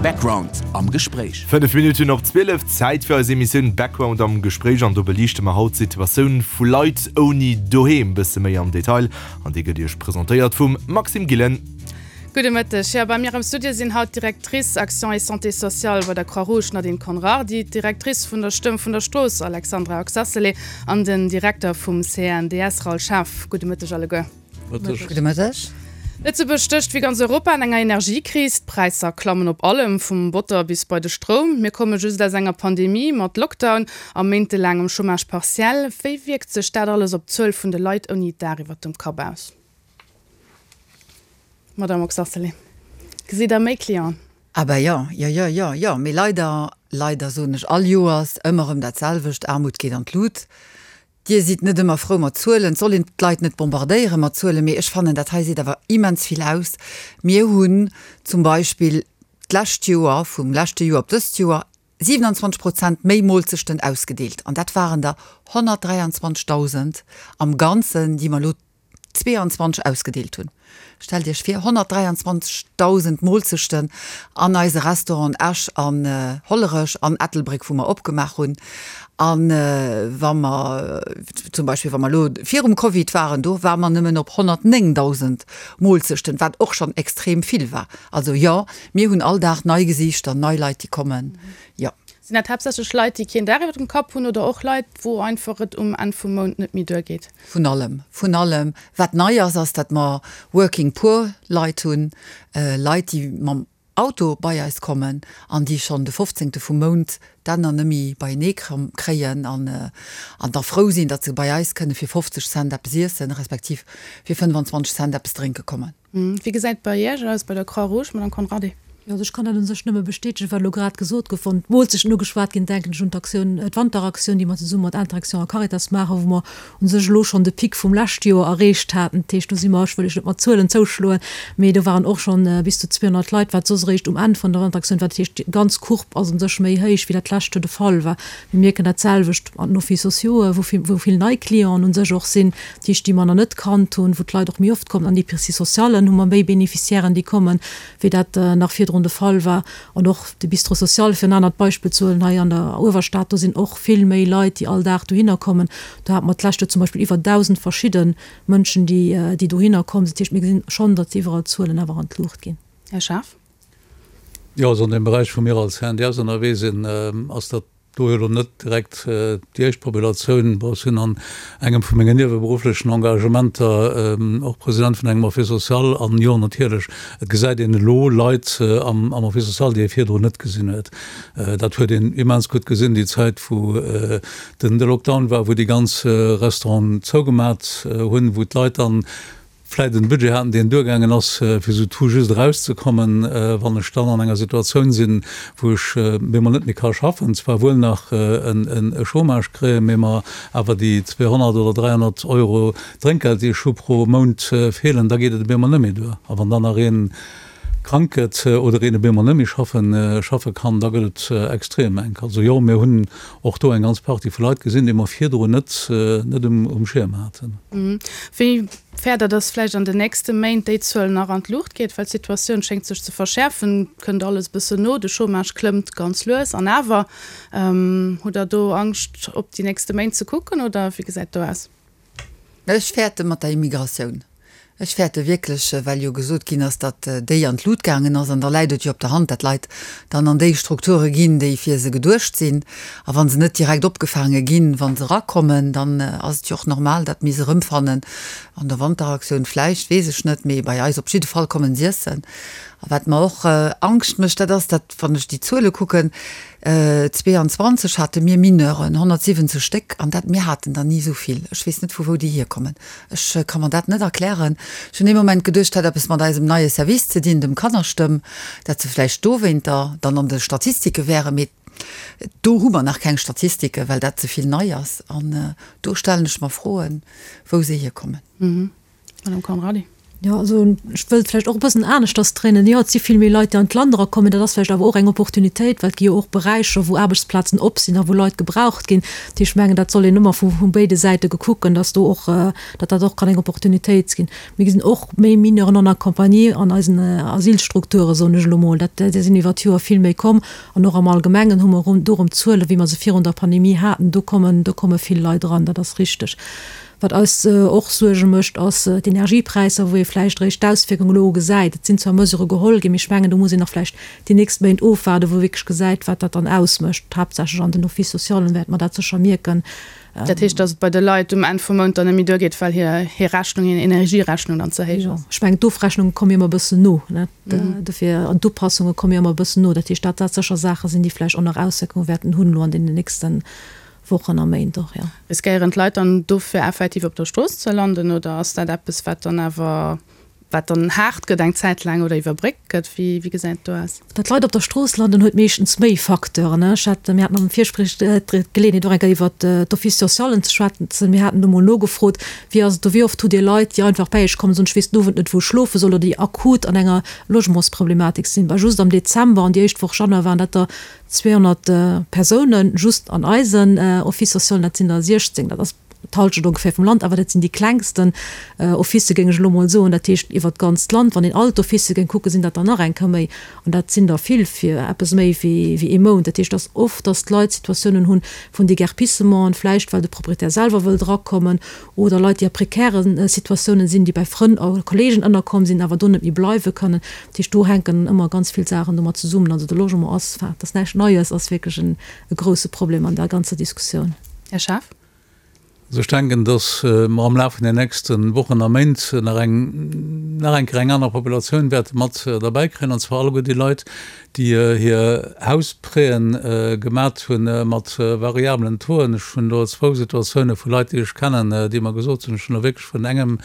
Background am Gespréich. 5 Minutten op 12, Zäit fir eis Emissioun Background am Gespréich an do beliichte mer haut d'Situatioun vu Leit ouni Doheem bësse méi am Detail an déi gëtt Iech presentéiert vum Maxime Gillen. Gudde Mëtteg. Jo, bei mir am Studio sinn haut d'Directrice Action et Santé sociale bei der Croix-Rouge Nadine Conrardy, d'Directrice vun der Stëmm vun der Strooss Alexandra Oxacelay an den Direkter vum CNDS Raoul Schaaf. Gudde Mëtteg alleguer. Mëtteg. Gudde Mëtteg. Lëtzebuerg stécht wéi ganz Europa an enger Energiekris. D'Präisser klammen op allem, vum Botter bis bei de Stroum. Mir komme just aus enger Pandemie mat Lockdown a méintelaangem Chômage partiel. Wéi wierkt sech dat alles op d'Zuel vun de Leit ouni Daach iwwert dem Kapp aus? Madame Oxacelay, gesitt Der méi Clienten? Ah ben jo, jo, jo, jo, jo. Mee leider, leider soen ech all Joers ëmmer erëm dat selwecht, Aarmut geet an d'Lut. Dir sidd net ëmmer frou mat Zuelen. Et soll een d'Leit net bombardéiere mat Zuelen, mee ech fannen, dat hei seet awer immens vill aus. Mir hunn zum Beispill d'lescht Joer, vum leschte Joer op dëst Joer, 27 Prozent méi Moolzechten ausgedeelt. An dat waren der 123.000 am Ganzen, déi mer elo 22 ausgedeelt hunn. Stellt Iech vir, 123.000 Moolzechten an eise Restauranten Esch an Hollerech an Ettelbréck, wou mer opgemaach hunn. A wa mer zum Beispill, wa mer elo virum Covid waren, do ware mer nëmmen op 109.000 Moolzechten, wat och schonn extrem vill war. Also jo, mir hunn all Dag nei Gesiichter, nei Leit, déi kommen, jo. Sinn dat haaptsächlech Leit, déi keen Daach iwwer dem Kapp hunn oder och Leit, wou einfach et um Enn vum Mount net méi duergeet? Vun allem, vun allem. Wat nei ass, ass, datt mer Working Poor Leit hunn, Leit, déi mam Auto bei eis kommen an déi schonn de fofzéngte vum Mount d'Enner nëmmi beienee kréien an da frou sinn, datt se bei eis kënne fir 50 Cent eppes iessen, respektiv fir 25 Cent eppes drénke kommen. Wéi gesäit et bei Iech aus, bei der Croix-Rouge, Madame Conrardy? Jo, also ech kann dat u sech nëmme bestätegen, wat elo grad gesot gouf. Wann d'Moolzechten ugeschwat ginn, denken ech un d'Aktioun, d'Wanteraktioun, déi mer zesumme mat Interaction a Caritas maachen, wou mer u sech elo schonn de Pic vum leschte Joer erreecht haten. Dat heescht, do si mer, ech wëll Iech net mat Zuelen zouschloen, mee do waren och schonn bis zu 200 Leit, wat soss eréischt um Enn vun der Wanteraktioun war. Dat heescht, déi ganz Courbe ass u sech méi héich, wéi dat d'lescht Joer de Fall war. Mir mierken dat selwecht an den Offices sociaux, wou vill, wou vill nei Clienten u sech och sinn, dat heescht, déi mer nach net kannt hunn, wou d'Leit och méi oft kommen. An Épiceries socialen hu mer méi Bénéficiairen, déi kommen, wéi dat nach virdrun de Fall war. An och de Bistrot social, fir en anert Beispill ze huelen, hei an der Uewerstad, do sinn och vill méi Leit, déi all Dag dohinner kommen. Do hate mer d'lescht Joer zum Beispill iwwer 1.000 verschidde Mënschen, déi, déi dohinner komm sinn. Dat heescht, mir gesinn schonn, datt iwwerall d'Zuelen awer an d'Luucht ginn. Här Schaaf. Jo, also an deem Beräich, wou mir als CNDS ënnerwee sinn, ass dat do jo elo net direkt déi éischt Populatioun. Bon, ech sinn an engem vu mengen nieweberufflechen Engagementer och President vun engem Office social an jo, natierlech, et gesäit een elo Leit am Office social, déi ee virdrun net gesinn huet. Dat huet een immens gutt gesinn déi Zäit, wou den de Lockdown war, wou déi ganz Restauranten zougemat hunn, wou d'Leit dann vläit en Budget haten, deen duergaangen ass, fir sou tout juste erauszekommen, wann ech dann an enger Situatioun sinn, wou ech bemol net méi ka schaffen, zwar wuel nach e Chômage kréien, mee mer awer déi 200 oder 300 Euro Drénkgeld, déi ech hu pro Mount, feelen, da geet et bemol net méi duer. A wann dann nach ee krank gëtt oder een op eemol net méi schaffen, schaffe kann, da gëtt et extrem enk. Also jo, mir hunn och do eng ganz Partie vu Leit gesinn, déi mer virdrun net, net um, um Schierm haten. Wéi fäert Der, dass vläicht an den nächste Méint déi Zuel nach an d'Luucht geet? Well d'Situatioun schéngt sech ze verschäerfen, kënnt alles e bëssen no, de Chômage klëmmt ganz lues an awer. Hutt Der do Angscht op déi nächste Méint ze kucken oder wéi gesäit do aus? Ech fäerte mat der Immigratioun. Ech fäerte wierklech, well jo gesot ginn ass, datt déi an d'Lut gaangen ass. An da läit et jo op der Hand, datt Leit dann an déi Strukture ginn, déi fir se geduecht sinn. A wa se net direkt opgefaange ginn, wa se erakommen, dann ass et jo och normal, datt mir se erëmfannen an der Wanteraktioun vläicht, weess ech net, mee bei eis op jidde Fall kommen s'iessen. A wat mer och Angscht mécht, dat ass, datt, wann ech déi Zuele kucken, 22 hate mir Mineuren, 170 Stéck, an dat, mir haten der ni esou vill. Ech weess net, vu wou déi hierkommen. Ech ka mer dat net erklären. Ech hunn ee Moment geduecht, et hätt eppes mat eisem neie Service ze dinn, dem Kannerstëmm, dat se vläicht dowéinter dann an de Statistike wären. Mee do hu mer nach keng Statistike, well dat ze vill nei ass. An do stellen ech mer Froen, wou se hierkommen. Madame Conrardy. Jo, also ech wëllt vläicht och e bëssen aneschters dréinen. Jo, et si vill méi Leit, déi an d'Land erakommen. Dat ass vläicht awer och eng Opportunitéit, well et gi jo och Beräicher, wou Aarbechtsplazen op sinn a wou Leit gebraucht ginn. Dat heescht, ech mengen, dat soll een ëmmer vu vu béide Säite gekucken, dass do och, datt dat och kann eng Opportunitéit ginn. Mir gesinn och méi Mineurs non accompagnés an eisen Asylstrukturen, soen ech elo mol. Dat, där sinn iwwer d'Joer vill méi komm. An och am Allgemengen hu mer do erëm Zuelen, wéi mer se virun der Pandemie haten. Do kommen, do komme vill Leit eran, dat ass richteg. Wat eis och Suerge mécht, ass d'Energiepräisser, wou ee vläicht eréischt d'Auswierkung elo gesäit. Et sinn zwar Mesurë geholl ginn, mee ech mengen, do muss een nach vläicht déi nächst Méint ofwaarden, wou ee wierklech gesäit, wat dat dann ausmécht. Haaptsächlech an den Office-socialen wäerte mer dat sécher mierken. Dat heescht, datt et bei de Leit um Enn vum Mount dann net méi duergeet, well hir hir Rechnung, hir Energierechnung dann ze héich ass? Ech mengen, d'Ofrechnunge komme jo ëmmer e bëssen no, ne? Dofir, an d'Upassunge komme jo ëmmer e bëssen no. Dat heescht, dat dat sécher Saache sinn, déi vläicht och nach Auswierkunge wäerten hunn elo an deenen nächste Wochen a Méint och, jo. Riskéieren d'Leit dann dofir effektiv op der Strooss ze landen oder ass dat eppes, wat dann awer, wat dann haart gëtt eng Zäit laang oder iwwerbréckt gëtt? Wéi, wéi gesäit et do aus? Datt Leit op der Strooss landen, huet meeschtens méi Facteuren. Ech hat, mir haten am Virgespréich d'Geleeënheet och eng Kéier iwwert d'Office socialen ze schwätzen. Mir haten do mol nogefrot, Wéi ass et do, wéi oft hutt Dir Leit, déi einfach bäi Iech kommen, soen, ech weess den Owend net, wou ech schlofe soll oder déi akut an enger Logementsproblematik sinn? Bah, just am Dezember an déi éischt Woch Januar waren dat der 200 Persounen just an eisen Office socialen, dat sinn der 16, dat ass d'Halschent ongeféier vum Land, awer dat sinn déi klengsten Officë géing ech elo mol soen. Dat heescht iwwert d'ganzt Land, wann een all d'Officë géing kucken, sinn dat der nach eng Kéier méi an dat sinn der vill fir eppes méi wéi ee Mount. Dat heescht, et ass oft, datt d'Leit Situatiounen hunn vun Déguerpissementen, vläicht well de Proprietär selwer wëllt erakommen oder Leit, déi a prekäre Situatiounen sinn, déi bei Frënn a Kollegen ënnerkomm sinn, awer do net méi bleiwe kënnen. Dat heescht, do hänken ëmmer ganz vill Saachen domat zesummen. Also de Logement ass, enfin, dat ass näischt Neies, ass wierklech en e grouse Problem an der ganzer Diskussioun. Här Schaaf. Also ech denken, datt mer am Laf vun den nächste Wochen a Méint nach eng, nach eng Kéier eng aner Populatioun wäerte mat derbäi kréien, an zwar alleguer déi Leit, déi hir Hausprêten gemat hu mat variablen Tauxen. Ech hunn do zwou Situatioune vu Leit, déi ech kennen, déi mer gesot hunn, ech hunn elo wierklech vun engem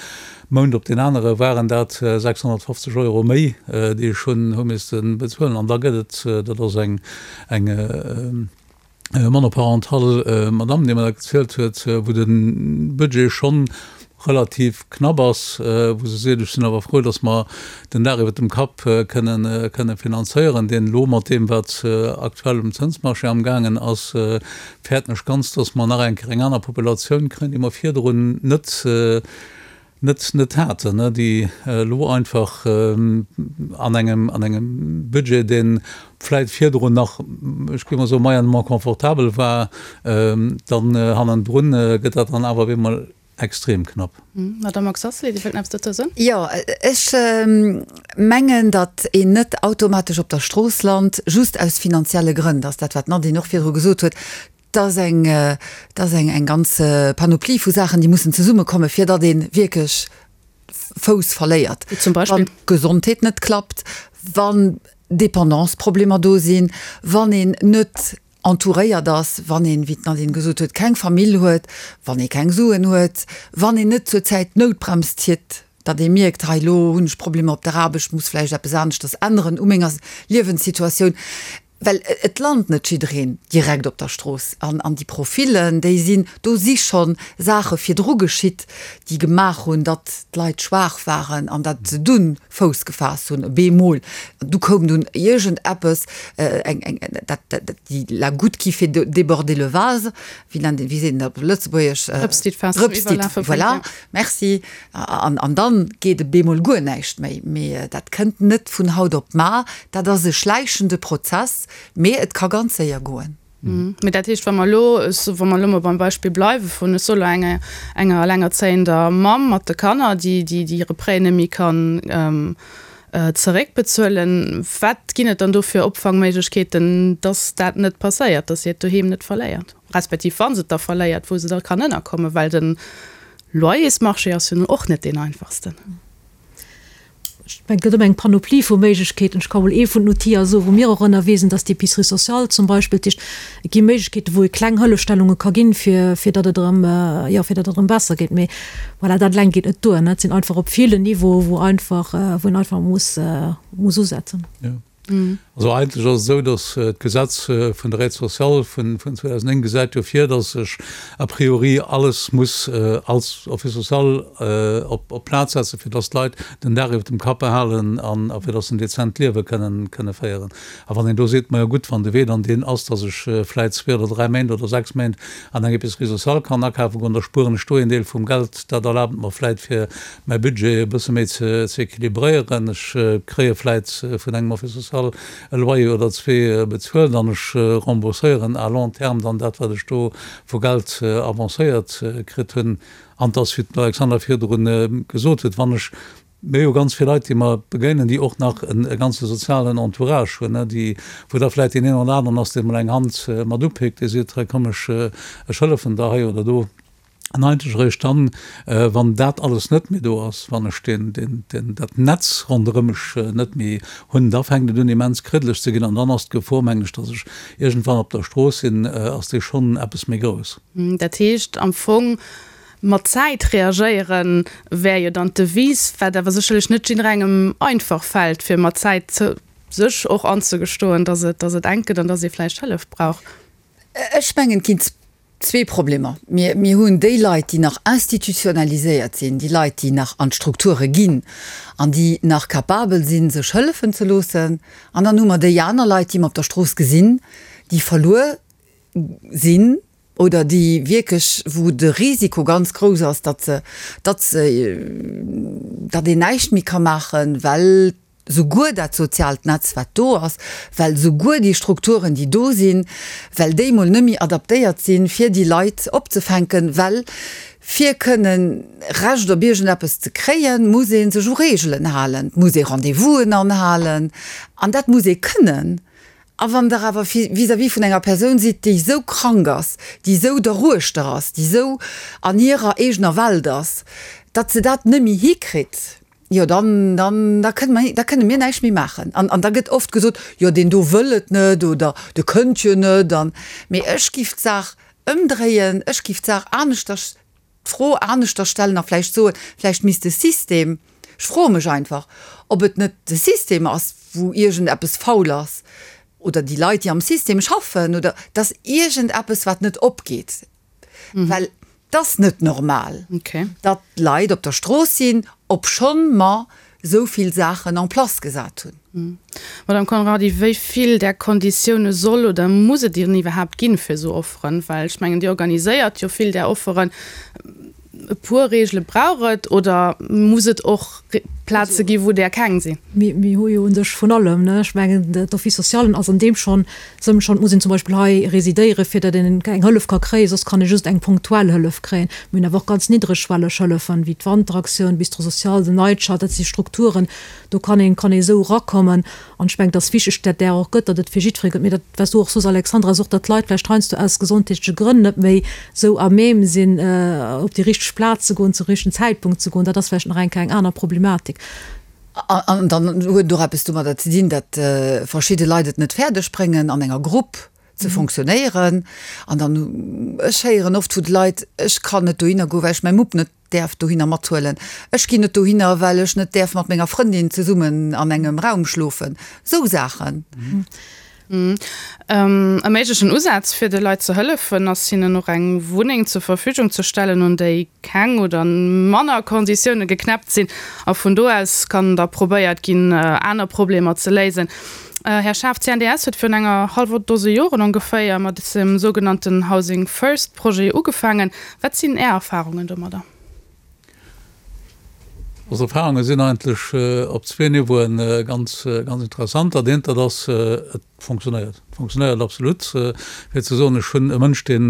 Mount op deen anere waren dat 650 Euro méi, déi ech hunn hu misste bezuelen. An da gëtt et, dat ass eng eng monoparental Madame, déi mer dat gezielt huet, wou de Budget schonn relativ knapp ass, wou se seet, ech sinn awer frou, datt mer den Dag iwwert dem Kapp kënnen kënne finanzéieren, deen elo mat deem, wat aktuell um Zënsmarché amgaangen ass, fäerten ech ganz, datt mer nach eng Kéier eng aner Populatioun kréien, déi mer virdrun net net net haten, déi elo einfach an engem an engem Budget, dee vläit virdrun nach, ech géif mol soen, moyennement confortabel war, dann hannendrun gëtt dat dann awer op eemol extrem knapp. Madamm Oxacelay, Dir wëllt nach eppes dozou soen? Jo, ech mengen, datt een net automatesch op der Strooss lant, just aus finanzielle Grënn. Dat ass dat, wat d'Nadine och virdru gesot huet. 't ass eng, 't ass eng, eng ganz Panoplie vu Saachen, déi mussen zesummekommen, fir datt ee wierklech Fouss verléiert. Wéi zum Beispill? Wann d'Gesondheet net klappt, wann Dépendanceproblemer do sinn, wann een net entouréiert ass, wann een, wéi d'Nadine gesot huet, keng Famill huet, wann ee keng Suen huet, wann een net zur Zäit d'Noutbrems zitt, datt ee mierkt, hei elo hunn ech Problemer op der Aarbecht, muss vläicht eppes aneschters änneren u menger Liewenssituatioun. Well et lant net jiddereen direkt op der Strooss. An an déi Profillen, déi sinn, do si scho Saache virdru geschitt, déi gemaach hunn, datt d'Leit schwaach waren an datt se dunn Fouss gefaasst hunn, bemol. Du koum dunn iergendeppes, eng, eng, dat, dat, déi la goutte qui fait déborder le vase, wéi nennt een, wéi seet een dat op Lëtzebuergesch? Drëps, déi d'Faass zum Iwwerlafe bréngt, voilà, merci. An, an dann geet e bemol guer näischt méi. Mee dat kënnt net vun haut op mar. Dat ass e schläichende Prozess, mee et ka ganz séier goen. Mee dat heescht, wa mer elo, wa mer elo mol beim Beispill bleiwe vun, ech soe lo enger, enger elengerzéiender Mamm mat de Kanner, déi, déi, déi hire Prêt net méi kann zeréckbezuelen, wat ginn et dann do fir Opfangméiglechkeeten, dass dat net passéiert, dass si hiert Doheem net verléiert, respektiv wa se et da verléiert, wou se da kann ënnerkommen, well den Loyersmarché ass jo nun och net deen einfachsten. Ech mengen, et gëtt ëmmer eng Panoplie vu Méiglechkeeten. Ech ka mol ee vun den Outiller soen, wou mir och ënnerwee sinn, dat ass d'Épicerie sociale zum Beispill. Dat heescht, et gi Méiglechkeeten, wou ee kleng Hëllefstellunge ka ginn, fir, fir datt et erëm, jo, fir datt et erëm besser geet. Mee voilà, dat eleng geet net duer, ne. Et sinn einfach op ville Niveaue, wou einfach, wou een einfach muss, muss usetzen. Jo. Also eigentlech ass et esou, datt d'Gesetz vun der Aide sociale vun 2009 gesäit jo vir, datt ech a priori alles muss als Office social op d'Plaz setzen, fir datt d'Leit den Dag iwwer dem Kapp behalen an fir datt se en dezent Liewe kënnen féieren. A wann een do seet, majo gutt, wann de Wee dann deen ass, datt ech vläit zwee oder dräi Méint oder sechs Méint an eng Épicerie sociale kann akafe goen, da spueren ech do een Deel vum Geld, dat erlaabt et mer vläit fir mäi Budget e bësse méi ze équilibréieren. Ech kréie vläit vun engem Office social e Loyer oder zwee bezuelt an ech rembourséieren à long terme dann dat, wat ech do vu Geld avancéiert kritt hunn. An et ass, wéi d'Alexandra virdru gesot huet, wann ech, mir hu jo ganz vill Leit, déi mer begéinen, déi och nach e ganze sozialen Entourage hunn, déi, wou da vläit deen een oder aneren ass, dee mol eng Hand mat upéckt, dee seet, hei komm, ech hëllefen der hei oder do. An eigentlech eréischt dann, wann dat alles net méi do ass, wann ech deen, deen, deen, dat Netz ronderëm mech net méi hunn, da fänkt et un immens kriddeleg ze ginn an dann ass d'Gefor, mengen ech, datt ech iergendwann op der Strooss sinn, ass déi schonn eppes méi grouss. Dat heescht am Fong, mat Zäit reagéieren wär jo dann d'Devise, wat awer sécherlech net jidderengem einfach fält, fir mat Zäit sech och anzegestoen, datt et, datt et enk gëtt an datt ee vläicht Hëllef brauch. Ech mengen, et ginn zwee Problemer. Mir, mir hunn déi Leit, déi nach institutionaliséiert sinn, déi Leit, déi nach an d'Strukture ginn an déi nach capabel sinn, sech hëllefen ze loossen. An dann hu mer déi aner Leit, déi mer op der Strooss gesinn, déi verluer sinn oder déi wierklech, wou de Risiko ganz grouss ass, datt se, datt se, datt een näischt méi ka maachen, well souguer dat soziaalt Netz, wat do ass, well souguer déi Strukturen, déi do sinn, well déi mol net méi adaptéiert sinn, fir déi Leit opzefänken, well fir kënnen Recht op iergendeppes ze kréien, muss ee sech u Reegelen halen, et muss ee Rendez-vousen anhalen an dat muss ee kënnen. A wann Der awer vis-à-vis vun enger Persoun sidd, déi esou krank ass, déi esou derruechter ass, déi esou an hirer eegener Welt ass, datt se dat net méi hikritt, Jo, dann, dann, da kënne mer, da kënne mir näischt méi maachen. An, an da gëtt oft gesot, jo, deen do wëll et net oder de kënnt jo net an. Mee ech giff d'Saach ëmdréien, ech giff d'Saach aneschters, d'Fro aneschters stellen a vläicht soen, vläicht misst de System, ech froe mech einfach, ob et net de System ass, wou iergendeppes faul ass oder déi Leit, déi am System schaffen oder dass iergendeppes, wat net opgeet. Well et ass net normal, datt Leit op der Strooss sinn, obschonn mer esou vill Saachen en place gesat hunn. Madame Conrardy, wéi vill där Konditioune soll oder muss et dann iwwerhaapt ginn, fir esou Offeren? Well ech mengen, Dir organiséiert jo vill där Offeren. E puer Reegele brauch et oder muss et och Plaze gi wou där keng sinn? Mir hu jo u sech vun allem, ne? Ech mengen, d'Office socialen ass an deem schonn Sënn schonn. Et muss een zum Beispill hei residéieren, fir datt een eng Hëllef ka kréien, soss kann ee just eng punktuell Hëllef kréien. Mir hunn awer och ganz niddregschwelleg Hëllefen, wéi d'Wanteraktioun, Bistro social, den Night Shelter, dat si Strukturen, do kann een, kann ee esou erakommen. An ech mengen, et ass wichteg, datt där och gëtt, datt et fir jiddweree gëtt. Mee dat, wat s du och sos, Alexandra, ass och, datt d'Leit vläicht heiansdo aus gesondheetleche Grënn net méi esou à même sinn, op déi richteg Plaz ze goen, zum richtegen Zäitpunkt ze goen. Dat ass vläicht nach eng Kéier eng aner Problematik. An dann huet et och eppes domadder ze dinn, datt verschidde Leit et net fäerdeg bréngen, an enger Grupp ze fonctionnéieren. An dann, ech héieren oft vu de Leit, ech kann net dohinner goen, well ech mäi Mupp net däerf dohinner mathuelen. Ech ginn net dohinner, well ech net däerf mat menger Frëndin zesummen an engem Raum schlofen. Esou Saachen. E méiglechen Usaz fir de Leit ze hëllefen, ass hinnen och eng Wunneng zur Verfügung ze stellen, un déi keng oder manner Konditioune geknäppt sinn. A vun do aus kann da probéiert ginn, aner Problemer ze léisen. Här Schaaf, d'CNDS huet virun enger hallwer Dose Joren ongeféier mat dem sougenannten Housing First Projet ugefaangen. Wat sinn Är Erfarungen domadder? Ons Erfarunge sinn eigentlech op zwee Niveauen ganz, ganz interessant. Dat eent, dat ass, et fonctionnéiert. Et fonctionnéiert absolut. Fir ze soen, ech hunn e Mënsch, dee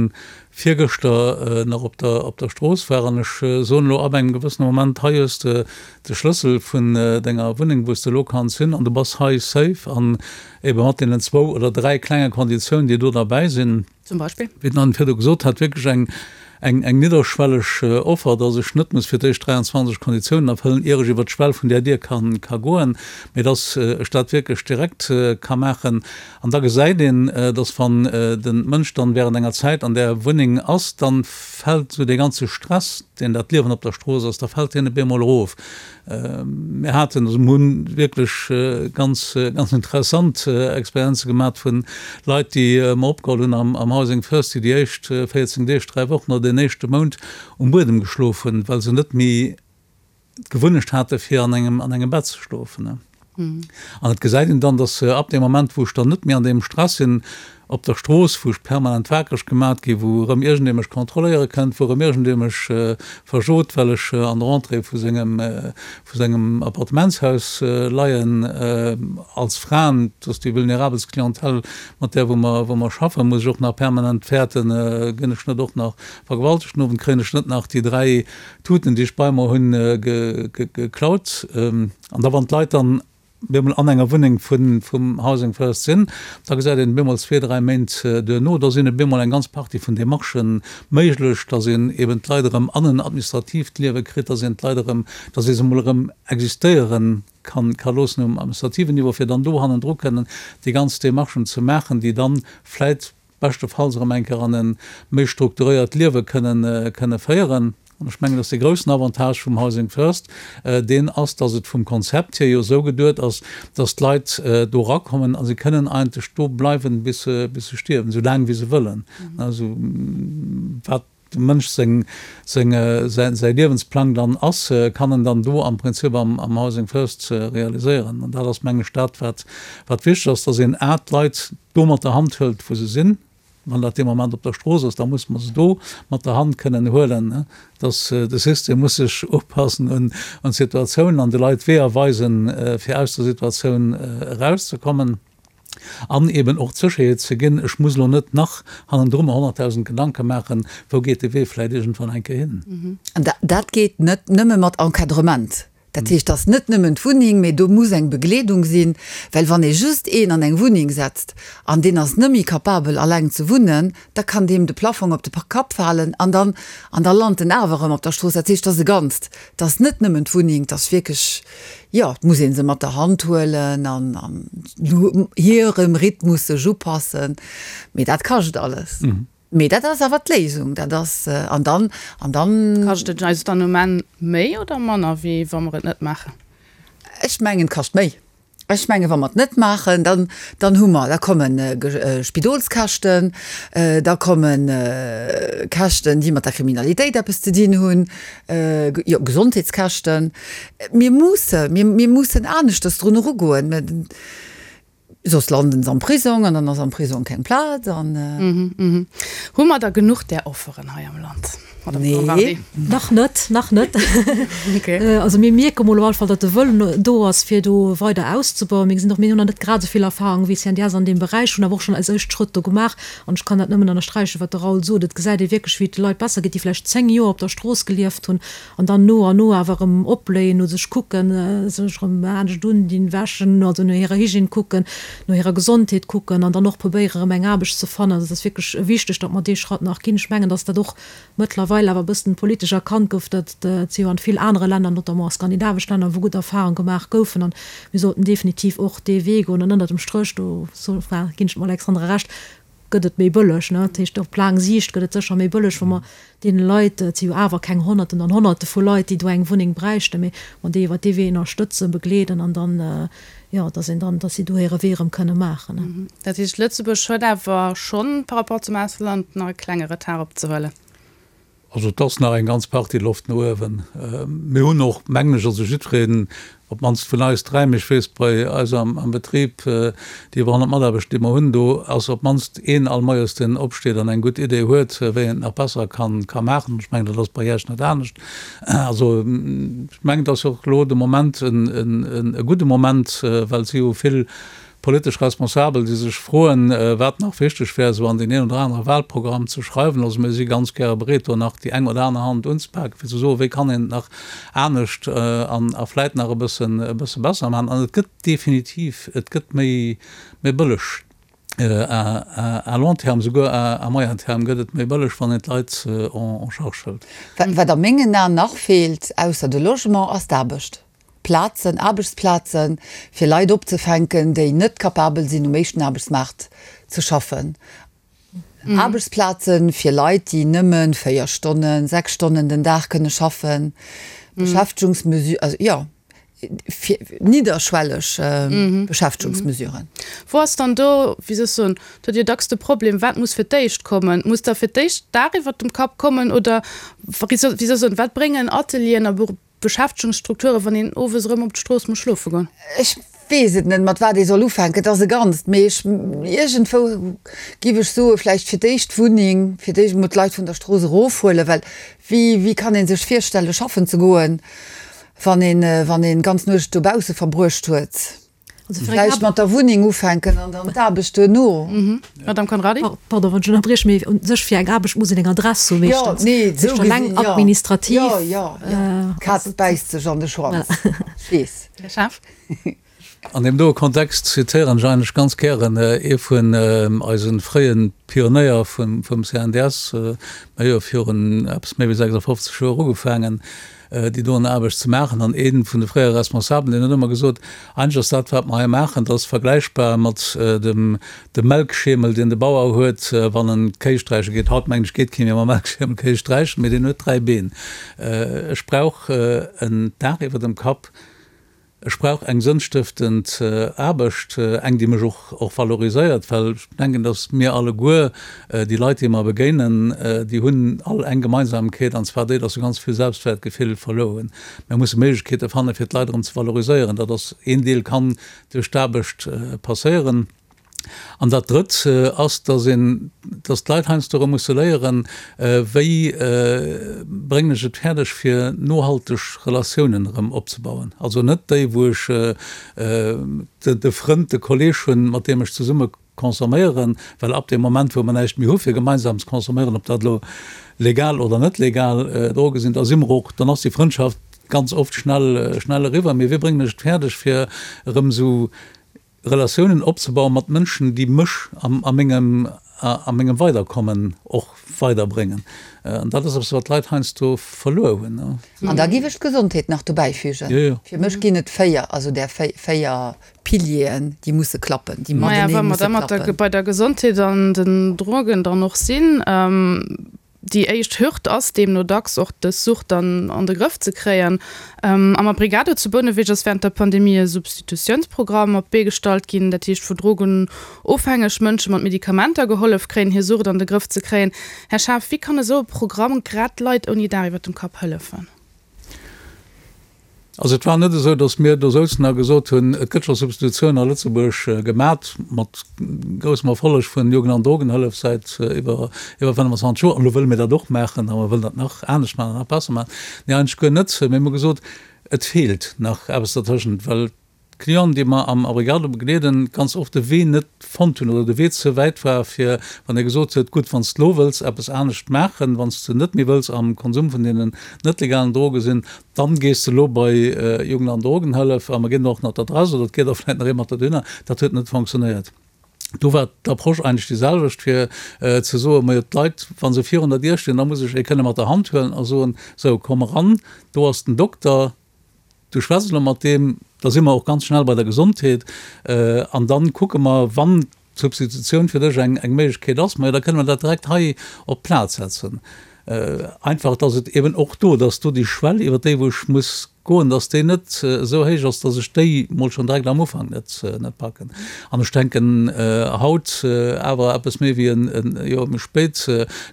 virgëschter nach op der, op der Strooss war an ech soen elo ab engem gewëssene Moment, hei hues de de Schlëssel vun denger Wunneng, wou s de elo kanns hin an du bass hei safe an ebe mat deenen zwou oder dräi klenge Konditiounen, déi do derbäi sinn. Zum Beispill? Wéi den Anne virdu gesot hat, wierklech eng. Eng eng nidderschwelleg Offer, dass ech net muss fir d'éischt 23 Konditiounen erfëllen, ier ech iwwer d'Schwell vun där Dier kann ka goen, mee dass ech dat wierklech direkt ka maachen. An da gesäit een, dass wann den Mënsch dann während enger Zäit an där Wunneng ass, dann fält esou dee ganze Stress, deen dat Liewen op der Strooss ass, da fält deen op eemol erof. Mir haten, also mir hunn wierklech ganz, ganz interessant Experienze gemat vun Leit, déi mer opgeholl hunn am Housing First, déi déi éischt 14 Deeg, 3 Wochen oder deen éischte Mount um Buedem geschlof hunn, well se net méi d'Gewunnecht hate fir an engem, an engem Bett ze schlofen. An et gesäit een dann, dass ab deem Moment, wou ech dann net méi an deem Stress sinn op der Strooss, wou ech permanent wakereg gemat ginn, wou erëm iergendee mech kontrolléiere kënnt, wou erëm iergendee mech verjot, well ech an der Entrée vu sengem, vu sengem Appartementshaus leien, als Fraen, dat ass déi vulnerabelst Clientèle, mat där wou mer, wou mer schaffen, muss ech och nach permanent fäerten, ginn ech net och nach vergewaltegt den Owend, kréien ech net nach déi 3 Tuten, déi ech bei mer hunn, geklaut. An da wann d'Leit dann bemol an enger Wunneng vum Housing First sinn, da gesäit een bemol zwee, dräi Méint duerno, da sinn op eemol eng ganz Partie vun Demarchë méiglech, datt een eben d'Leit erëm an en administratiivt Liewe kritt, datt een d'Leit erëm, datt ee se emol erëm existéiere kann, ka loossen um administrativen Niveau, fir dann do hannendru kënnen déi ganz Demarchen ze maachen, déi dann vläit beschtefalls erëm eng Kéier an e méi strukturéiert Liewe kënnen, kënne féieren. An ech mengen, dass dee groussen Avantage vum Housing First deen ass, dass et vum Konzept hier jo esou geduet ass, dass d'Leit do erakommen a si kënnen eigentlech do bleiwen, bis se, bis se stierwen, esou laang wéi se wëllen. Also wat dem Mënsch seng, seng, säi, säi Liewensplang dann ass, kann en dann do am Prinzip am, am Housing First realiséieren. An dat ass, mengen ech, dat, wat, wat wichteg ass, dass een a d'Leit do mat der Hand hëlt, wou se sinn. Wann dat dee Moment op der Strooss ass, da muss mer se do mat der Hand kënnen huelen. Dass de System muss sech upassen un, un d'Situatioun an de Leit Weeër weisen, fir aus der Situatioun erauszekommen. An eben och d'Sécherheet ze ginn, ech muss elo net nach hannendru mer 100.000 Gedanke maachen, wou geet de Wee vläicht iergendwann eng Kéier hin. An dat geet net nëmme mat Encadrement. Dat heescht, dass net nëmmen d'Wunneng, mee do muss eng Begleedung sinn, well wann ee just een an eng Wunneng setzt an deen ass net méi capabel alleng ze wunnen, da kann deem de Plafong op de Kapp falen an dann, an da lant en awer erëm op der Strooss. Dat heescht, dat ass e Ganzt, dat ass net nëmmen d'Wunneng, dat ass wierklech, jo, et muss ee se mat der Hand huelen an an hirem Rhythmus sech upassen, mee dat kascht alles. Mee dat ass awer d'Léisung, dat ass, an dann, an dann. Kascht et eis dann um Enn méi oder manner, wéi wa mer et net maachen? Ech mengen, et kascht méi. Ech mengen, wa mer et net maachen, dann, dann hu mer, da komme Spidolskäschten, da komme Käschten, déi mat der Kriminalitéit eppes ze dinn hunn, jo, Gesondheetskäschten. Mir musse, mir, mir mussen aneschters drun erugoen. Soss landen se am Prisong an dann ass am Prisong keng Plaz an. Hu mer da genuch där Offeren hei am Land, Madame Conrardy? Nee. Nach net, nach net. Also mir mierke mol op alle Fall, datt de Wëllen do ass, fir do weider auszebauen. Mir gesinn och, mir hunn nach net grad esou vill Erfahrung wéi CNDS an deem Beräich, hunn awer och schonn eis éischt Schrëtt do gemaach. An ech kann dat nëmmen ënnersträichen, wat de Raoul sot. Et gesäit ee wierklech, wéi et de Leit besser geet, déi vläicht 10 Joer op der Strooss gelieft hunn An dann no an no awer erëm opbléien, no sech kucken, sech erëm anescht undinn, wäschen, also no hirer Hygiène kucken, no hirer Gesondheet kucken an dann och probéieren, erëm eng Aarbecht ze fannen. Also et ass wierklech wichteg, datt mer dee Schratt nach ginn. Ech mengen, datt dat och mëttlerweil awer e bëssen politesch erkannt gouf, datt et si jo an vill anere Länner, notamment a skandinavesch Länner, wou gutt Erfahrung gemaach goufen. An mir sollten definitiv och dee Wee goen. An ënnert dem Stréch, do ginn ech dem Alexandre Recht, gëtt et méi bëlleg. Dat heescht, op laang Siicht gëtt et sécher méi bëlleg, wa mer deene Leit, et si jo awer keng Honnerten an Honnerte vu Leit, déi do eng Wunneng bräichten, mee mer déi iwwert dee Wee ënnerstëtzen, begleeden an dann, jo, dass een dann, dass si do hire Wee erëm kënne maachen. Dat heescht, Lëtzebuerg huet awer schonn par rapport zum Ausland nach e klenge Retard opzehuelen? Also et ass nach eng ganz Partie Loft no uewen. Mir hunn och, mengen ech, also jiddwereen, op d'mannst vun eis dräi, mee ech weess bei eis am Betrib, déi iwwer 100 Mataarbechter, déi mer hunn, do ass op d'mannst een all Moies, deen opsteet an eng gutt Idee huet, wéi een et nach besser kann maachen. Ech mengen, dat ass bei Iech net anescht. Also ech mengen, et ass och elo de Moment e gudde Moment, well et si jo vill Politesch Responsabel, déi sech froen, wat nach wichteg wär, esou an deen een oder anere Wahlprogramm ze schreiwen. Also mir si ganz gäre bereet, do nach déi eng oder aner Hand unzepaken, fir ze soen, wéi kann een et nach anescht an a vläit nach e bëssen, e bësse besser maachen. An et gëtt definitiv, et gëtt méi, méi bëlleg. À long terme, souguer à moyen terme gëtt et méi bëlleg, wann een d'Leit en charge hëlt. Wat a mengen Aen nach feelt, ausser de Logement, ass d'Aarbecht. Plazen, Aarbechtsplazen, fir Leit opzefänken, déi net capabel sinn, um éischten Aarbechtsmaart ze schaffen. Aarbechtsplazen fir Leit, déi nëmme 4 Stonnen, 6 Stonnen den Dag kënne schaffen. Beschäftegungsmesu-, also jo. fir nidderschwelleg Beschäftegungsmesuren. Wou ass dann do, wéi soll ech soen, do hutt Dir dacks de Problem, wat muss fir d'éischt kommen? Muss da fir d'éischt d'Daach iwwert dem Kapp kommen oder, wéi soll ech soen, wat bréngen Atelieren a Beschäftegungsstrukturen, wann een owes erëm op d'Strooss muss schlofe goen? Ech weess et net, mat wat ee soll ufänken. Et ass e Ganzt, mee ech, iergendwou giff ech soe vläicht fir d'éischt d'Wunneng, fir d'éischt emol d'Leit vun der Strooss erofhuelen, well wéi, wéi kann ee sech virstelle schaffen ze goen, Wann een, wann een d'ganz Nuecht dobausse verbruecht huet. Also fir eng Vläicht mat der Wunneng ufänken an dann d'Aarbecht duerno. Madame Conrardy? Pardon, wann ech ënnerbrieche, mee u sech fir eng Aarbecht muss een eng Adress hu Jo, meeschtens. nee, Dat esou heescht eleng gesinn, jo. administrativ. Jo, jo, jo. D'Kaz bäisst sech an de Schwanz. Ech weess. Här Schaaf? An deem doe Kontext zitéieren ech eigentlech ganz gären ee vun eise fréie Pionéier vum CNDS, mir hu jo virun eppes méi wéi 56 Joer ugefaangen, déi doen Aarbecht ze maachen, an ee vun de fréiere Responsabelen, deen huet ëmmer gesot, Eigentlech ass dat, wat mer hei maachen, dat ass vergläichbar mat dem Melkschemel, deen de Bauer huet, wann en d'Kéi sträiche geet. Haut, mengen ech, geet kee méi mam Melkschemel Kéi sträichen, mee deen huet dräi Been. Ech brauch en Daach iwwer dem Kapp. Ech brauch eng sënnstëftend Aarbecht, eng, déi mech och och valoriséiert, well ech denken, datt mir alleguer, déi Leit, déi mer begéinen, déi hunn all eng Gemeinsamkeet, an zwar déi, datt se ganz vill Selbstwäertgefill verluer hunn. Mir musse Méiglechkeete fannen, fir d'Leit erëm ze valoriséieren. Dat ass een Deel, kann duerch d'Aarbecht passéieren. An dat Drëtt ass, dass een, dass d'Leit heiansdo erëm musse léieren, wéi bréngen ech et fäerdeg, fir nohalteg Relatiounen erëm opzebauen. Also net déi, wou ech de Frënd, de Kolleeg hunn, mat deem ech zesumme consomméieren, well ab deem Moment, wou mer näischt méi hu fir gemeinsam ze consomméieren, ob dat elo legal oder net legal Droge sinn, da si mer och, dann ass déi Frëndschaft ganz oft schnell, schnell eriwwer. Mee wéi bréngen ech et fäerdeg, fir erëm esou Relatiounen opzebauen mat Mënschen, déi mech a mengem, a mengem Weiderkommen och weiderbréngen. An dat ass eppes, wat d'Leit heiansdo verluer hunn. An da géif ech d'Gesondheet nach dobäifügen. Jo, jo. Fir mech ginn et 4, also där 4 Pilieren, déi musse klappen, déi matenee musse klappen. Maja, wa mer da mat der, bei der Gesondheet an den Drogen dann och sinn, Déi éischt Hürd ass deemno dacks och dës Sucht dann an de Grëff ze kréien. Am Abrigado zu Bouneweg ass wärend der Pandemie e Substitutiounsprogramm op d'Bee gestallt ginn, dat heescht wou drogenofhängeg Mënsche mat Medikamenter gehollef kréien, hir Sucht an de Grëff ze kréien. Här Schaaf, wéi kann esou e Programm grad Leit ouni Daach iwwer dem Kapp hëllefen? Also et war net esou, datt mir do souzen a gesot hunn, et gëtt scho Substitutioun a Lëtzebuerg gemat, mat groussem Erfolleg vun Jugend an Drogenhëllef säit iwwer iwwer 25 Joer, an elo wëlle mir dat och maachen a mer wëllen dat nach anescht maachen an nach besser maachen. Nee, eigentlech guer net. Mir hu gesot, et feelt nach eppes dertëschent, well D'Clienten, déi mer am Abrigado begleeden, ganz oft de Wee net fonnt hunn oder de Wee ze wäit war, fir wann ee gesot huet, gutt, wann s de lo wëlls eppes anescht maachen, wann s de net méi wëlls am Konsum vun deenen net legalen Droge sinn, dann gees de lo bei Jugend an Drogenhëllef a mer ginn der och nach d'Adress oder et geet och vläicht nach ee mat der dohinner. Dat huet net fonctionnéiert. Do war d'Approche eigentlech déi selwecht, fir ze soen, majo d'Leit, wa se virun der Dier stinn, da muss ech ee kënne mat der Hand huelen a soen, sou komm eran, do ass den Dokter, Du schwätz elo mat deem, da si mer och ganz schnell bei der Gesondheet an dann kucke mer, wann d'Substitutioun fir dech eng Méiglechkeet ass, majo da kënne mer dat direkt hei op d'Plaz setzen. Einfach, dass et eben och do, dass do déi Schwell, iwwer déi wou ech muss goen, dass déi net esou héich ass, dass ech déi mol schonn direkt am Ufank net net packen. An ech denken haut, awer eppes méi wéi e Joer méi spéit,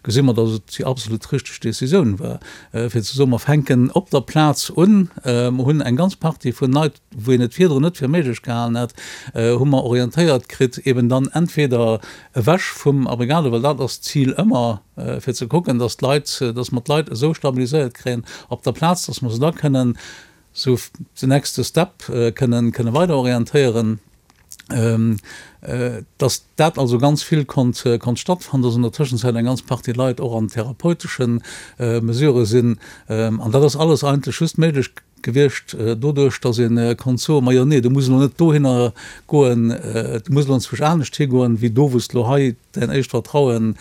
gesi mer, dass et déi absolut richteg Décisioun war, fir ze soen, mer fänken op der Plaz un, mer hunn eng ganz Partie vun Leit, wou een et virdrun net fir méiglech gehalen hätt, hu mer orientéiert kritt, eben dann entweder ewech vum Abrigado, well dat ass d'Zil ëmmer, fir ze kucken, dass d'Leit, dass mer d'Leit esou stabiliséiert kréien op der Plaz, dass mer se da kënnen sou den nächste Step kënnen kënne weider orientéieren. Dass dat also ganz vill konnt konnt stattfannen, dass an der Tëschenzäit eng ganz Partie Leit och an therapeutesche Mesurë sinn. An dat ass alles eigentlech just méiglech. gewiescht doduerch, datt ee konnt soen, Majo nee, du muss elo net dohinner goen, du muss elo enzwousch anescht higoen, wéi do wou s de elo hei däin éischt Vertraue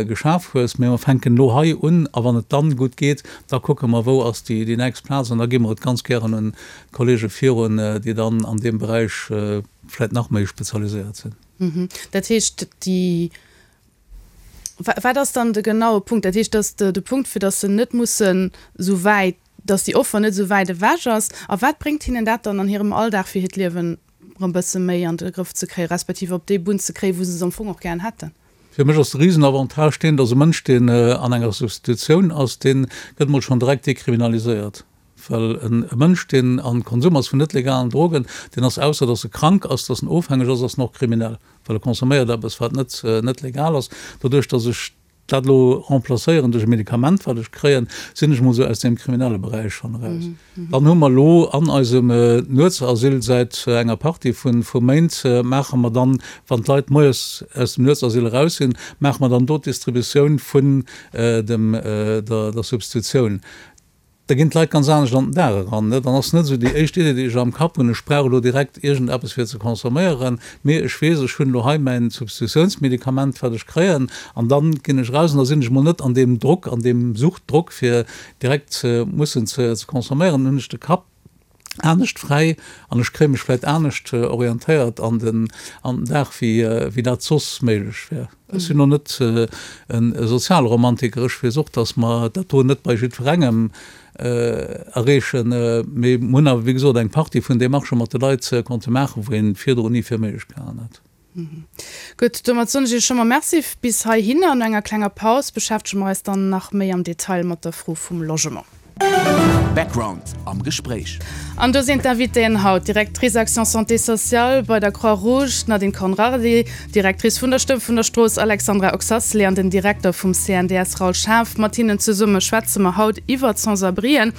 geschaf hues, mee mer fänken elo hei un a wann et dann gutt geet, da kucke mer wou ass déi nächst Plaz an da gi mer et ganz gären un d'Kollege virun, déi dann an deem Beräich vläicht nach méi spezialiséiert sinn. Dat heescht, déi, wat ass dann de genaue Punkt? Dat heescht, dass de Punkt, fir dass se net mussen esou wäit, dass déi Offer net esou wäit ewech ass. A wat bréngt hinnen dat dann an hirem Alldag, fir hiert Liewen erëm e bësse méi an de Grëff ze kréien, respektiv op déi Bunn ze kréien, wou se se am Fong och gären hätten? Fir mech ass de Risenavantage deen, dass e Mënsch, deen an enger Substitutioun ass, dee gëtt emol schonn direkt dekriminaliséiert. Well e Mënsch, deen am Konsum ass vun net legalen Drogen, deen ass, ausser dass e krank ass, dass en ofhängeg ass, ass en och kriminell, well e consomméiert eppes, wat net net legal ass. Doduerch, dass ech dat elo remplacéieren duerch e Medikament, wat ech kréien, sinn ech emol esou aus deem kriminelle Beräich schonn eraus. Dann hu mer elo an eisem Nuetsasyl säit enger Partie vu vu Méint, maache mer dann, wann d'Leit moies aus dem Nuetsasyl eraus sinn, maache mer dann do d'Distributioun vun dem der der Substitutioun. Da ginn d'Leit ganz anescht an den Dag eran. Dann ass net esou déi éischt Idee, déi ech am Kapp hunn, ech brauch elo direkt iergendeppes fir ze consomméieren, mee ech weess, ech hunn elo hei mäin Substitutiounsmedikament, wat ech kréien, an da ginn ech eraus an da sinn ech emol net an deem Drock, an deem Suchtdrock, fir direkt mussen ze consomméieren. Dann hunn ech de Kapp anescht fräi an ech kréie mech vläit anescht orientéiert an den an den Dag wéi wéi dat soss méiglech wär. Ech sinn och net e Sozialromantiker, ech weess och, datt mer dat do net bei jiddwerengem erreechen, mee mer hunn awer wéi gesot eng Partie vun Demarchë mat de Leit konnte maachen, wou een virdrun ni fir méiglech gehalen hätt. Gutt, domat soen ech Iech scho mol Merci bis heihinner. No enger klenger Paus beschäftege mer eis dann nach méi am Detail mat der Fro vum Logement. Background am Gespréich. An do sinn d'Invitéen haut, d'Directrice Action Santé Sociale bei der Croix-Rouge, d'Nadine Conrardy, d'Directrice vun der Stëmm vun der Strooss, Alexandra Oxacelay an den Direkter vum CNDS, Raoul Schaaf. Mat hinnen zesumme schwätze mer haut iwwert d'Sans-abrien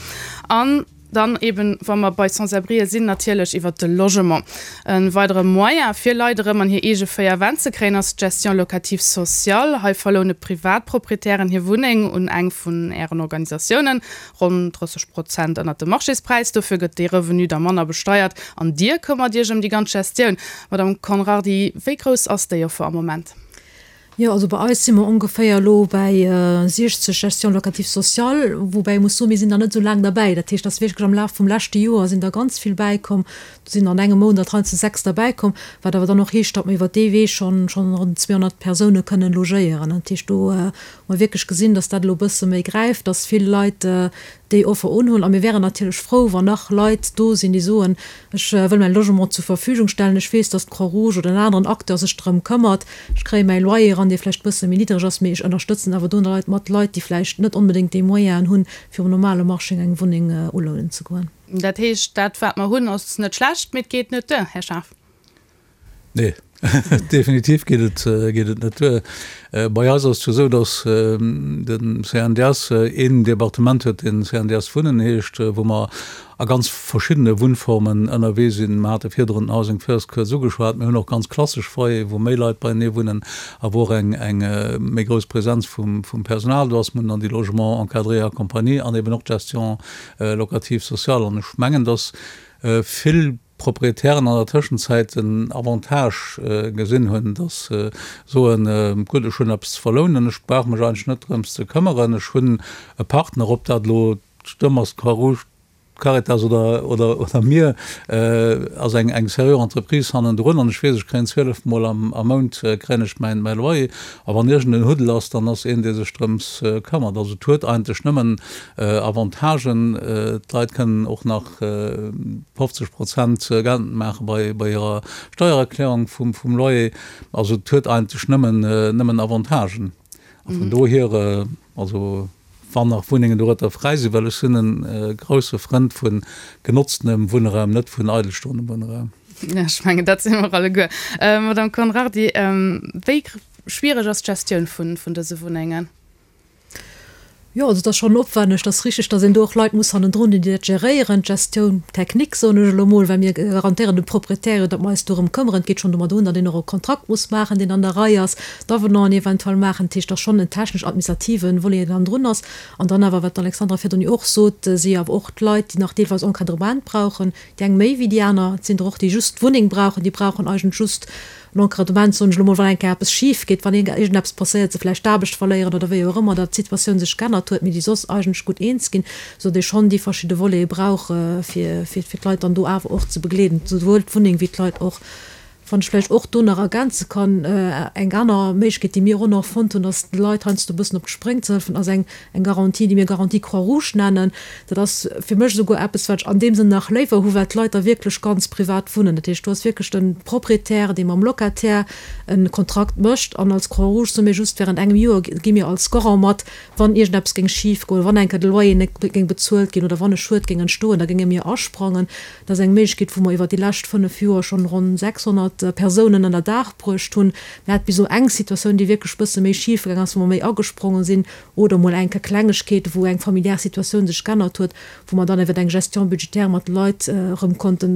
an. Dann eben, wa mer bei Sans-abrien sinn, natierlech iwwert de Logement. E weidere Moyen, fir Leit erëm an hir eege 4 Wänn ze kréien, ass d'Gestion locative sociale. Hei verloune Privatproprietären hir Wunneng un eng vun Ären Organisatiounen, ronn 30 Prozent ënnert dem Marchéspräis. Dofir gëtt dee Revenu da manner besteiert an Dir këmmert Iech ëm déi ganz Gestioun. Madame Conrardy, wéi grouss ass déi Offer am Moment? Jo, also bei eis si mer ongeféier elo bäi 60 Gestion locative sociale, woubäi ee muss soen, mir sinn nach net esou laang derbäi. Dat heescht, dass wierklech am Laf vum leschte Joer sinn der ganz vill bäikomm. Do sinn an engem Mount der heiansdo 6 derbäikomm, wat awer dann och heescht, datt mer iwwert dee Wee schonn schonn ronn 200 Persoune kënnen logéieren. Dat heescht, do hu mer wierklech gesinn, dass dat elo e bësse méi gräift, dass vill Leit déi Offer unhunn. A mir wären natierlech frou, wann nach Leit do sinn, déi soen, Ech wëll mäi Logement zur Verfügung stellen, ech weess, datt d'Croix-Rouge oder en aneren Acteur sech drëm këmmert, ech kréie mäi Loyer eran, dee vläicht e bësse méi niddreg ass, mee ech ënnerstëtzen awer do Leit mat Leit, déi vläicht net onbedéngt déi Moyenen hunn, fir um normale Marché eng Wunneng ulounen ze goen. Dat heescht, dat wat mer hunn, ass net schlecht, mee et geet net duer, Här Schaaf? Nee, definitiv geet et, geet et net duer. Bei eis ass et jo esou, datt de CNDS een Departement huet, dee CNDS Wunnen heescht, wou mer a ganz verschiddene Wunnformen ënnerwee sinn. Mer hate virdrun den Housing First kuerz ugeschwat. Mir hunn och ganz klassesch Foyere wou méi Leit beienee wunnen a wou och eng, eng méi grouss Presenz vum, vum Personal do ass. Mir hunn dann déi Logements encadrés et accompagnés an eben och d'Gestion locative sociale. An ech mengen, datt vill Proprietären an der Tëschenzäit den Avantage gesinn hunn, dass se soen, gutt, ech hunn eppes ze verlounen, ech brauch mech eigentlech net drëms ze këmmeren, ech hunn e Partner, ob dat elo d'Stëmm ass, d'Croix-Rouge, d'Caritas oder, oder, oder mir, ass eng, eng seriö Entreprise hannendrun an ech weess, ech kréien 12 Mol am, am Mount kréien ech mäin, mäi Loyer a wann iergend en Huddel ass, dann ass een, dee sech drëms këmmert. Also et huet eigentlech nëmmen Avantagen. D'Leit kënnen och nach 50 Prozent geltend maache bei hirer Steiererklärung vum Loyer. Also et huet eigentlech nëmmen Avantagen. A vun dohier, also wann nach Wunnengen dorueter fräi sinn, well ech sinn e grousse Frënd vu genotztenem Wunnraum, net vun eidelstoendem Wunnraum. Ech mengen, dat si mer alleguer. Madame Conrardy, wéi schwiereg ass d'Gestioun vun dëse Wunnengen? Jo, also et ass schonn opwänneg. Et ass richteg, datt een do och Leit muss hannendrun hunn, déi dat geréieren, d'Gestioun technique, soen ech elo mol, well mir garantéieren dem Proprietär jo, datt mer eis dorëm këmmeren. Et geet schonn domat un, datt een och e Kontrakt muss maachen, deen an der Rei ass, d'Avenanten eventuell maachen. Dat heescht, et ass schonn en technesch-administrative Volet, deen hannendrun ass. An dann awer, wat d'Alexandra virdrun jo och sot, si awer och d'Leit, déi nach deelweis Encadrement brauchen, déi eng méi wéi déi aner. Et sinn der och, déi just d'Wunneng brauchen, déi brauchen eigentlech just En Encadrement, soen ech elo mol, wann eng Kéier eppes schif geet, wann iergendeppes passéiert, se vläicht d'Aarbecht verléieren oder wéi och ëmmer, datt d'Situatioun sech geännert huet, mee déi soss eigentlech gutt eens ginn, esou datt ee schonn déi verschidde Volete brauch, fir fir d'Leit dann do awer och ze begleeden, souwuel d'Wunneng wéi d'Leit och. Wann ech vläicht och do nach ergänze kann, eng aner Méiglechkeet, déi mir och nach fonnt hunn, ass de Leit heiansdo e bëssen op d'Spréng ze hëllefen, ass eng Eng Garantie, déi mir Garantie Croix-Rouge nennen. Dat ass fir mech esouguer eppes, wat ech an deem Sënn nach léiwer hu, well d'Leit da wierklech ganz privat wunnen. Dat heescht, do ass wierklech de Proprietär, dee mam Locataire e Kontrakt mécht. An als Croix-Rouge soe mir just, Während engem Joer gi mir als Garant mat, wann iergendeppes géing schifgoen, wann eng Kéier de Loyer net géing bezuelt ginn oder wann e Schued géing entstoen, da géinge mir asprangen. Dat ass eng Méiglechkeet, wou mer iwwer déi lescht 5 Joer schonn ronn 600 Persounen ënner Daach bruecht hunn. Mir hate bis elo eng Situatioun, déi wierklech e bësse méi schif gaang ass, wou mer méi agespronge sinn, oder mol eng Kéier Klengegkeete, wou eng familiär Situatioun sech g'ännert huet, wou mer dann iwwer eng Gestion budgétaire mat de Leit erëm konnte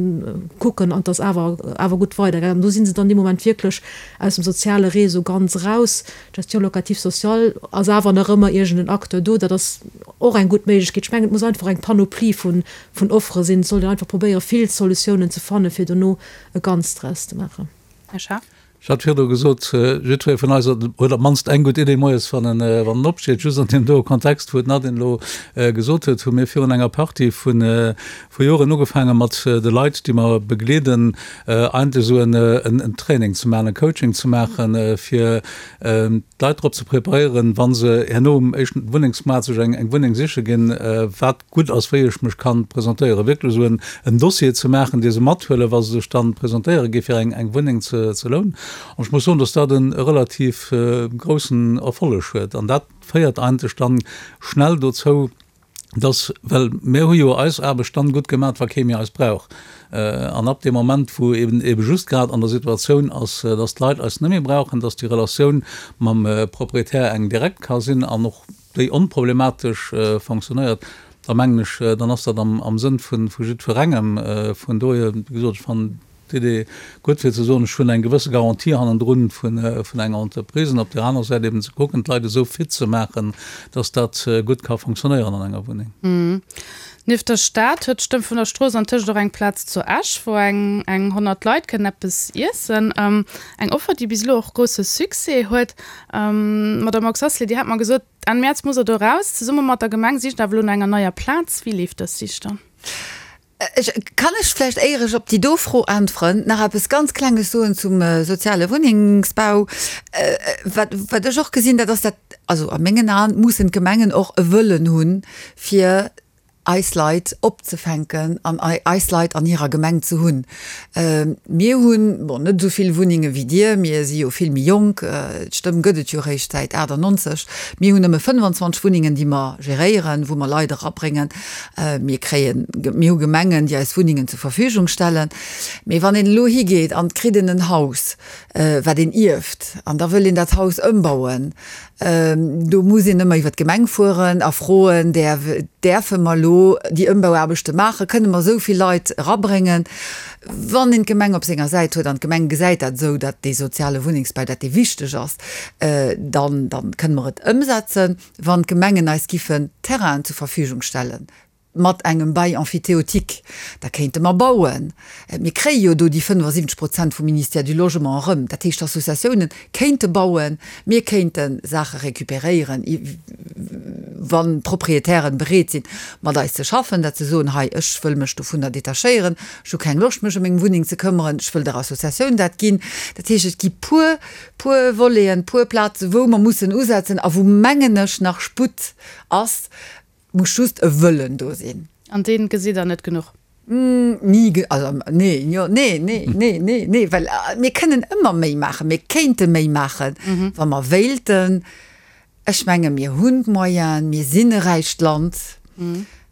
kucken an et ass awer awer gutt weidergaangen. An do si se dann dee Moment wierklech aus dem soziale Réseau ganz eraus. D'Gestion locative sociale ass awer nach ëmmer iergend en Acteur do. Dat ass och eng gutt Méiglechkeet. Ech mengen, et muss einfach eng Panoplie vun Offere sinn. Et sollt een einfach probéieren, vill Solutiounen ze fannen, fir dono e Ganzt draus ze maachen. Här Schaaf. Ech hat virdu gesot, jiddweree vun eis huet op d'mannst eng gutt Idee moies, wann en, wann en opsteet. Just an deem doe Kontext, wou d'Nadine elo gesot huet, hu mir virun enger Partie vu vu Joren ugefaange mat de Leit, déi mer begleeden, eigentlech esou en, en Training ze maachen, e Coaching ze maachen, fir d'Leit drop ze preparéieren, wa se herno um éischten Wunnengsmaart sech eng, eng Wunneng siche ginn, wat gutt ass, wéi ech mech kann presentéieren, wierklech esou en Dossier ze maachen, dee se mathuelen, wa se sech dann presentéiere gi fir eng Wunneng ze lounen. An ech muss soen, dass dat e relativ groussen Erfolleg huet. An dat féiert eigentlech dann schnell dozou, dass, well mir hu jo eis Aarbecht dann gutt gemaach, wa kee méi eis brauch. An ab deem Moment, wou eben ebe just grad an der Situatioun ass, dass d'Leit eis net méi brauchen, dass déi Relatioun mam Proprietär eng direkt ka sinn an och déi onproblematesch fonctionnéiert, da mengen ech, dann ass dat am Sënn vu jiddwerengem. Vun dohier, wéi gesot, ech fannen d'Idee gutt, fir ze soen, ech hunn eng gewësse Garantie hannendrun vun enger Entreprise, an op där anerer Säit eben ze kucken, d'Leit esou fit ze maachen, dass dat gutt ka fonctionnéieren an enger Wunneng. Nieft der Stad huet d'Stëmm vun der Strooss antëscht och eng Plaz zu Esch, wou eng eng 100 Leit kënnen eppes iessen. Eng Offer, déi bis elo och grousse Succès huet. Madame Oxacelay, Dir hat mer gesot, Enn Mäerz muss Der do raus. Zesumme mat der Gemeng sicht Der awer elo no enger neier Plaz. Wéi leeft dës Sich dann? Ech, kann ech vläicht, éier ech op déi do Fro äntweren, nach eppes ganz Klenges soen zum soziale Wunnengsbau? Wat, wat ech och gesinn, dat ass dat, also a mengen Aen mussen d'Gemengen och e Wëllen hunn, fir eis Leit opzefänken an eis Leit an hirer Gemeng ze hunn. Mir hunn, bon, net esou vill Wunnenge wéi Dir, mir si jo vill méi jonk, d'Stëmm gëtt et jo eréischt säit 98, mir hunn nëmme 25 Wunnengen, déi mer geréieren, wou mer Leit erabréngen. Mir kréien, mir hu Gemengen, déi eis Wunnengen zur Verfügung stellen. Mee wann een elo higeet an et kritt een en Haus, wat een ierft, an da wëll een dat Haus ëmbauen, Do muss een ëmmer iwwer d'Gemeng fueren a froen, Däerfe mer elo déi Ëmbauaarbechte maachen? Kënne mer esou vill Leit erabréngen? Wann een d'Gemeng op senger Säit huet an d'Gemeng gesäit dat esou, datt dee soziale Wunnengsbau, datt dee wichteg ass, dann, dann kënne mer et ëmsetzen. Wann d'Gemengen eis giffen Terrainen zur Verfügung stellen, mat engem Bail emphytéotique, da kéinte mer bauen. Mir kréie jo do déi 75 Prozent vum Ministère du Logement erëm. Dat heescht, d'Associatiounen kéinte bauen, mir kéinte Saache récupéréieren, wann d'Proprietären bereet sinn, mat eis ze schaffen, dat se soen, hei, ech wëll mech dovunner detachéieren, ech hu keng Loscht, mech ëm meng Wunneng ze këmmeren, ech wëll der Associatioun dat ginn. Dat heescht, et gi puer, puer Voleten, puer Plazen, wou mer mussen usetzen a wou, mengen ech, nach Sputt ass, Muss just e Wëllen do sinn. An deen gesitt der net genuch? Ni, also nee, jo, nee, nee, nee, nee, nee, well mir kënnen ëmmer méi maachen, mir kéinte méi maachen, wa mer wéilten. Ech menge mir hunn d'Moyenen, mir sinn e räicht Land.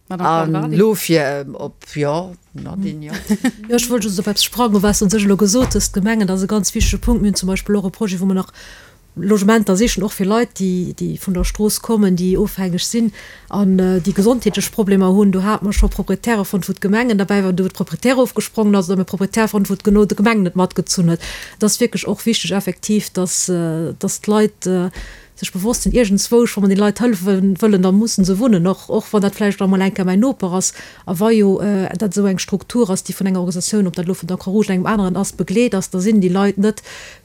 An elo fir op, jo, Nadine, jo. Jo, ech wollt just op eppes sprangen, wat s de un sech elo gesot hues, d'Gemengen, dat ass e ganz wichtege Punkt. Mir hunn zum Beispill och e Projet, wou mer nach. Logementer sichen, och fir Leit, déi, déi vun der Strooss kommen, déi ofhängeg sinn an déi gesondheetlech Problemer hunn. Do hate mer scho Proprietäre fonnt, wou d'Gemengen derbäi waren, do wou de Proprietär ofgesprongen ass, oder mir Proprietär fonnt, wou genau d'Gemeng net matgezunn huet. Et ass wierklech och wichteg effektiv, dass, dass d'Leit sech bewosst sinn, iergendzwousch, wa mer den Leit hëllefe wëllen, da mussen se wunnen, och, och wann dat vläicht emol eng Kéier mäin Noper ass. A wa jo dat esou eng Struktur ass, déi vun enger Organisatioun, ob dat elo vun der Croix-Rouge oder engem aneren ass, begleet ass, da sinn déi Leit net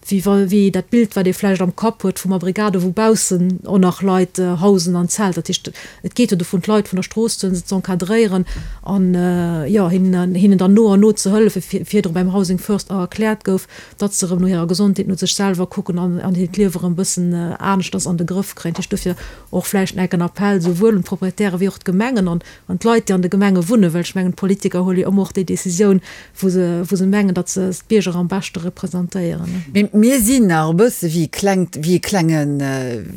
wéi wa wéi dat Bild, wat ee vläicht am Kapp huet vum Abrigado, wou baussen och nach Leit hausen an Zelter. Dat heescht, et geet jo dovun, d'Leit vun der Strooss ze huelen, se z'encadréieren an, jo, hinnen, hinnen dann no an no ze hëllefen, virdru beim Housing First erkläert gouf, datt se erëm no hirer Gesondheet, no sech selwer kucken an an hiert Liewe erëm e bëssen aneschters an de Grëff kréien. Dat heescht, dofir och vläicht enk en Appell souwuel un d'Proprietäre wéi och d'Gemengen an an d'Leit, déi an de Gemenge wunnen, well ech mengen, d'Politiker huele jo ëmmer och déi Décisioun, wou se, wou se mengen, datt se d'Bierger am beschte representéieren. Mee mir sinn nach e bësse wéi e klengt, wéi e klengen,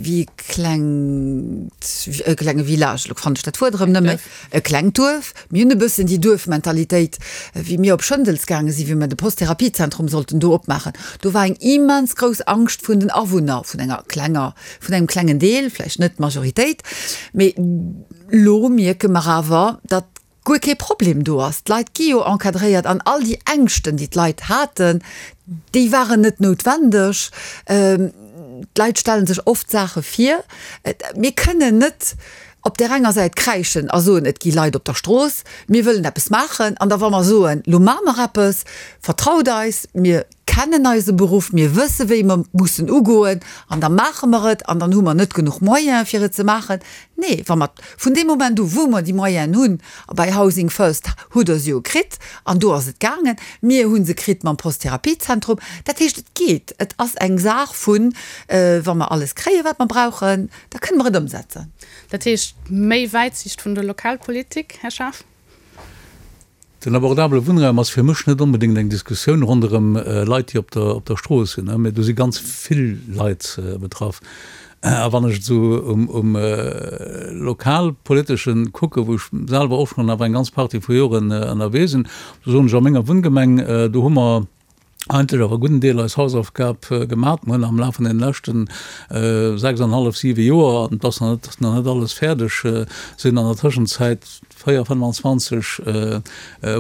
wéi e klengt, e klenge Village, elo fannen ech dat Wuert erëm net méi, e klengt Duerf. Mir hunn e bëssen déi Duerfmentalitéit, wéi mir op Schëndels gaange sinn, wéi mir de Post-Therapiezentrum sollten do opmaachen. Do war eng immens grouss Angscht vun den Awunner, vun enger klenger, vun engem klengen Deel, vläicht net d'Majoritéit, mee Lo mierke mer awer, datt guer kee Problem do ass. D'Leit gi jo encadréiert an all déi Ängschten, déi d'Leit haten, déi waren net noutwendeg. D'Leit stelle sech oft Saache vir. Mir kënnen net op där enger Säit kräischen a soen, et gi Leit op der Strooss, mir wëllen eppes maachen. An da wa mer soen, lo maache mer eppes, vertraut eis, mir kennen eise Beruff, mir wësse wéi mer mussen ugoen an da maache mer et an dann hu mer net genuch Moyene fir et ze maachen. Nee, wa mer vun deem Moment u wou mer déi Moyenen hunn, a bei Housing First hutt Der se jo kritt an do ass et gaangen, mir hu se kritt mam Posttherapiezentrum, dat heescht et geet, et ass eng Saach vun, wa mer alles kréien, wat mer brauchen, da kënne mer et ëmsetzen. Dat heescht méi Wäitsiicht vun der Lokalpolitik, Här Schaaf? Den abordabele Wunnraum ass fir mech net onbedéngt eng Diskussioun ronderëm Leit, déi op der, op der Strooss sinn, mä do si ganz vill Leit betraff. A wann ech et esou um, um Lokalpoliteschen kucken, wou ech selwer och schonn awer eng ganz Partie vu Joren ënnerwee sinn, do soen ech, a menger Wunngemeng, do hu mer eigentlech awer e gudden Deel eis Hausaufgab gemat. Mer hunn am Laf vun deene leschten 6 an hallef, siwe Joer, an et ass nach net, nach net alles fäerdeg, sinn an der Tëschenzäit 4, 25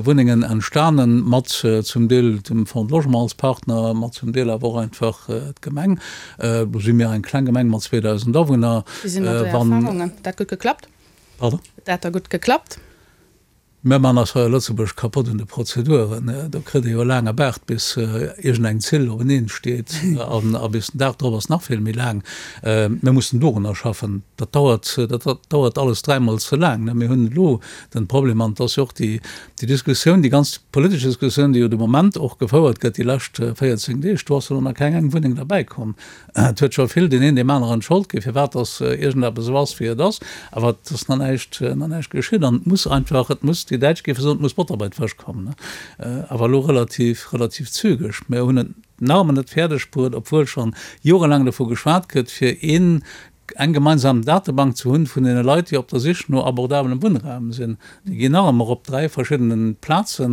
Wunnengen entstanen, mat zum Deel dem Fonds de Logement als Partner, mat zum Deel awer och einfach d'Gemeng. Do si mir eng kleng Gemeng mat 2.000 Awunner. Wéi sinn do Är Erfahrungen? Dat gutt geklappt? Pardon? Dat da gutt geklappt? Mir man eis hei a Lëtzebuerg kapott un de Prozeduren. Do kritt ee jo e laange Baart, bis iergendeng Zill openeen steet. An a bis den Dag drop ass nach vill méi laang. Mir mussen dorunner schaffen. Dat dauert, dat dauert alles dräimol ze laang. Mir hunn elo den Problem, an et ass jo och déi, déi Diskussioun, déi ganz politesch Diskussioun, déi jo de Moment och gefouert gëtt déi lescht 14 Deeg, do ass jo elo nach keng eng Wunneng derbäikomm. Et huet scho vill deen een deem aneren d'Schold ginn, firwat dass iergendeppes esou ass, wéi et ass. Awer et ass nach näischt, nach näischt geschitt. An et muss einfach, et muss, déi Däitsch géife soen, et muss Botter bei d'Fësch kommen. Awer elo relativ, relativ zügeg. Mir hunn et nach ëmmer net fäerdeg bruet, obwuel scho jorelaang dovu geschwat gëtt, fir een, eng gemeinsam Datebank ze hunn vun deene Leit, déi op der Sich no abordabelem Wunnraum sinn. Déi ginn nach ëmmer op 3 verschiddene Plaze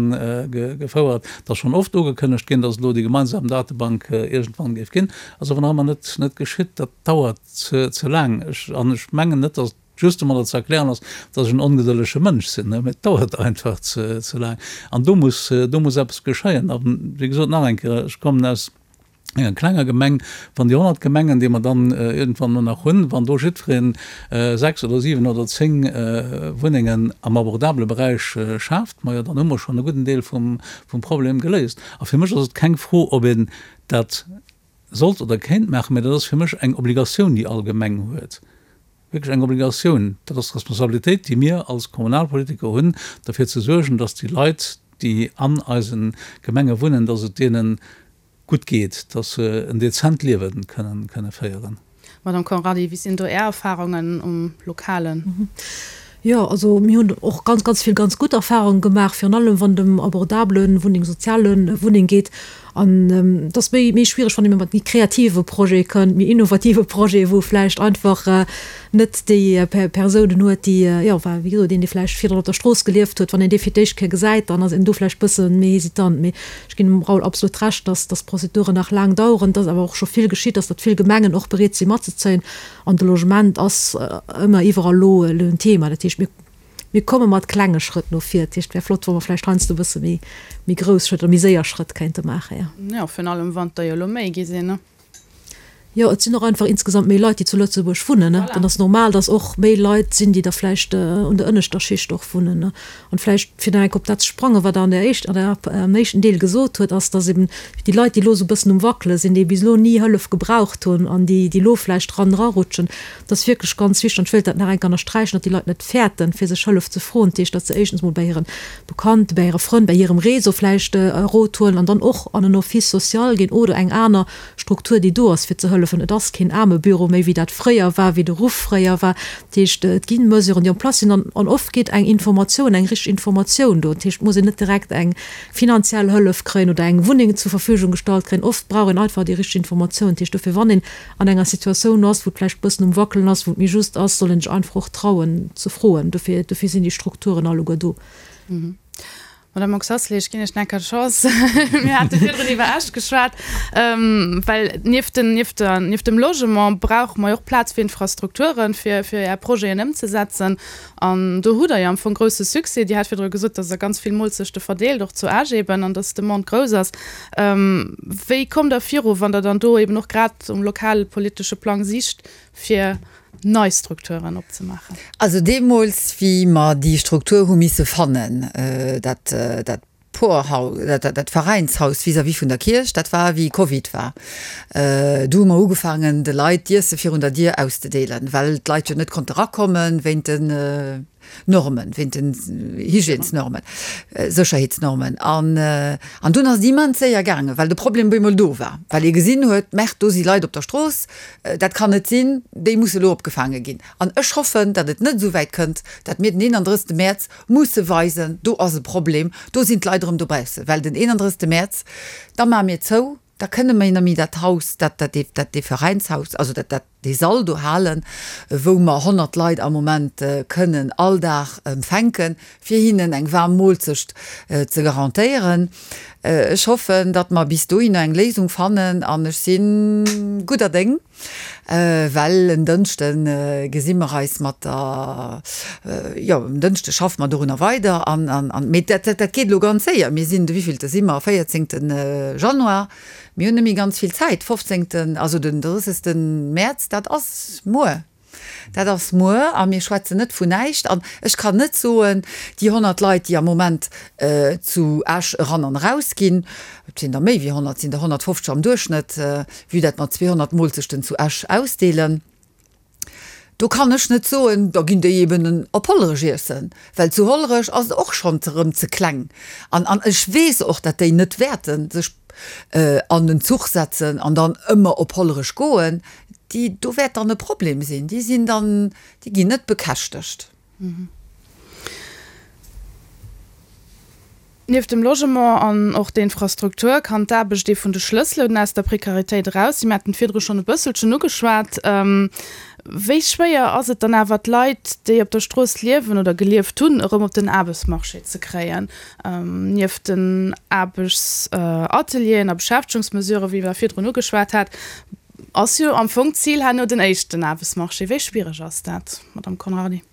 gefouert. Et ass schonn oft ugekënnegt ginn, datt et elo déi gemeinsam Datebank iergendwann géif ginn. Ass awer nach ëmmer net net geschitt. Dat dauert ze ze laang. Ech, an ech mengen net, datt et just domadder ze erklären ass, datt ech en ongedëllege Mënsch sinn, mä et dauert einfach ze ze laang. An do muss do muss eppes geschéien. A wéi gesot, nach eng Kéier, ech kommen aus enger klenger Gemeng, wann déi 100 Gemengen, déi mer dann iergendwann elo nach hunn, wann do jiddweree 6 oder 7 oder 10 Wunnengen am abordabele Beräich schaaft, majo, dann hu mer schonn e gudden Deel vum Problem geléist. A fir mech ass et keng Fro, ob een dat sollt oder kéint maachen, mä dat ass fir mech eng Obligatioun, déi all Gemeng huet, wierklech eng Obligatioun. Dat ass d'Responsabilitéit, déi mir als Kommunalpolitiker hunn, derfir ze suergen, dass déi Leit, déi an eise Gemenge wunnen, dass et deene gutt geet, dass se en dezent Liewe kënnen féieren. Madame Conrardy, wéi sinn do Är Erfahrungen um Lokalen? Jo, also mir hunn och ganz, ganz vill ganz gutt Erfahrungen gemaach, virun allem wann et ëm abordabele Wunneng, soziale Wunneng geet. An et ass méi, méi schwiereg, wann ee mat méi kreative Projete kënnt, méi innovative Projete, wou vläicht einfach net déi Persounen huet, déi, jo, enfin, wéi gesot, een, dee vläicht virdrun op der Strooss gelieft huet, wann een dee fir d'éischt Kéier gesäit, dann ass een do vläicht bësse méi hesitant. Mee ech ginn dem Raoul absolut Recht, dass, dass d'Prozeduren nach laang daueren, dass awer och scho vill geschitt ass, datt vill Gemengen och bereet si matzezéien. An de Logement ass ëmmer iwwerall elo en Thema. Dat heescht, mir, mir komme mat klenge Schrëtt no vir. Dat heescht, et wär flott, wa mer vläicht heiansdo e bësse méi, méi grouss Schrëtt oder méi séier Schrëtt kéinte maachen, jo. Jo, virun allem wann der jo elo méi gi sinn, ne? Jo, et sinn och einfach insgesamt méi Leit, déi zu Lëtzebuerg wunnen, ne? Dann ass normal, dass och méi Leit sinn, déi da vläicht un der ënneschter Schicht och wunnen, ne? An vläicht, fir nach eng Kéier op dat ze sprangen, wat Der an der éischt, an der, am éischten Deel gesot huet, ass, dass eben déi Leit, déi elo esou e bëssen um Wackele sinn, déi bis elo ni Hëllef gebraucht hunn an déi, déi elo vläicht dran erarutschen, dat ass wierklech ganz wichteg, an ech wéilt dat nach eng Kéier ënnersträichen, datt déi Leit net fäerten, fir sech Hëllef ze froen. Dat heescht, datt se éischtens mol bei hire Bekannten, bei hire Frënn, bei hirem Réseau vläicht e Rot huelen an dann och an en Office social ginn oder eng aner Struktur, déi do ass, fir ze hëllefen. Et ass keen Aarmebüro méi, wéi dat fréier war, wéi de Ruff fréier war. Dat heescht, et gi Mesuren, déi en place sinn an an oft geet eng Informatioun, eng richteg Informatioun do. Dat heescht, et muss een net direkt eng finanziell Hëllef kréien oder eng Wunneng zur Verfügung gestallt kréien. Oft brauch een einfach déi richteg Informatioun. Dat heescht dofir, wann een an enger Situatioun ass, wou et vläicht e bëssen um Wackelen ass, wou et méi just ass, soll een sech einfach och trauen ze froen. Dofir, dofir sinn déi Strukturen alleguer do. Madame Oxacelay, ech ginn Iech nach eng Kéier d'Chance. Mir hate virdrun iwwer Esch geschwat, well nieft den, nieft der, nieft dem Logement brauche mer jo och Plaz fir Infrastrukturen, fir, fir Är Projeten ëmzesetzen. An do hutt Der jo am Fong grousse Succès. Dir hat virdru gesot, dass Der ganz vill Molzechte verdeelt, och zu Esch eben, an dass d'Demande grouss ass. Wéi kommt Der viru, wann Der dann do eben och grad um lokalpolitesche Plang sicht, fir nei Strukturen opzemaachen. Also deemools, wéi mer déi Struktur hu misse fannen, dat, dat Porhaus, dat, dat Veräinshaus vis-à-vis vun der Kierch, dat war wéi Covid war, du hu mer ugefaangen, de Leit d'Iesse virun der Dier auszedeelen, well d'Leit jo net konnte rakommen wéint den Normen, wéint den Hygiènesnormen, Sécherheetsnormen. An, an dunn ass et immens séier gaangen, well de Problem op eemol do war, well ee gesinn huet, Merde, do si Leit op der Strooss, dat kann net sinn, déi musse elo opgefaange ginn. An ech hoffen, datt et net esou wäit kënnt, datt mir den 31. Mäerz musse weisen, do ass e Problem, do sinn d'Leit erëm dobaussen, well den 31. Mäerz, da maache mir zou, da kënne mir net méi dat Haus, dat, dat, dat, dee Veräinshaus, also dat, dat, dee Sall do halen, wou mer 100 Leit am Moment kënnen all Dag empfänken, fir hinnen eng waarm Moolzecht ze garantéieren. Ech hoffen, datt mer bis dohinner eng Léisung fannen an ech si gudder Déng, well en Dënschde gesi mer eis mat der, jo, en Dënschde schaffe mer dorunner weider an, an, mee dat, dat geet elo ganz séier. Mir sinn, de wéivillte si mer? Véierzéngte Januar. Mir hunn net méi ganz vill Zäit. Fofzéngten, also den drëssegste Mäerz, dat ass muer. Dat ass muer a mir schwätzen net vun näischt. An ech kann net soen, déi 100 Leit, déi am Moment zu Esch eran an eraus ginn, et sinn der méi wéi 100, et sinn der 150 am Duerchschnëtt, vue dat mer 200 Moolzechten zu Esch ausdeelen, do kann ech net soen, da ginn déi eben op Hollerech iessen, well zu Hollerech ass et och schonn erëm ze kleng. An an ech weess och, datt déi net wäerte sech an den Zuch setzen an dann ëmmer op Hollerech goen. Déi, do wäert dann e Problem sinn, déi sinn dann, déi ginn net bekäschtegt. Nieft dem Logement an och der Infrastruktur kann d'Aarbecht ee vun de Schlësselen aus der Prekaritéit eraus sinn. Mir haten et virdru schonn e bësselchen ugeschwat. Wéi schwéier ass et dann awer, d'Leit, déi op der Strooss liewen oder gelieft hunn, erëm op den Aarbechtsmarché ze kréien? Nieft den Aarbechtsatelieren a Beschäftegungsmesuren, wéi Der virdrun ugeschwat hat, ass jo am Fong d'Zil herno den éischten Aarbechtsmarché. Wéi schwiereg ass dat, Madamm Conrardy?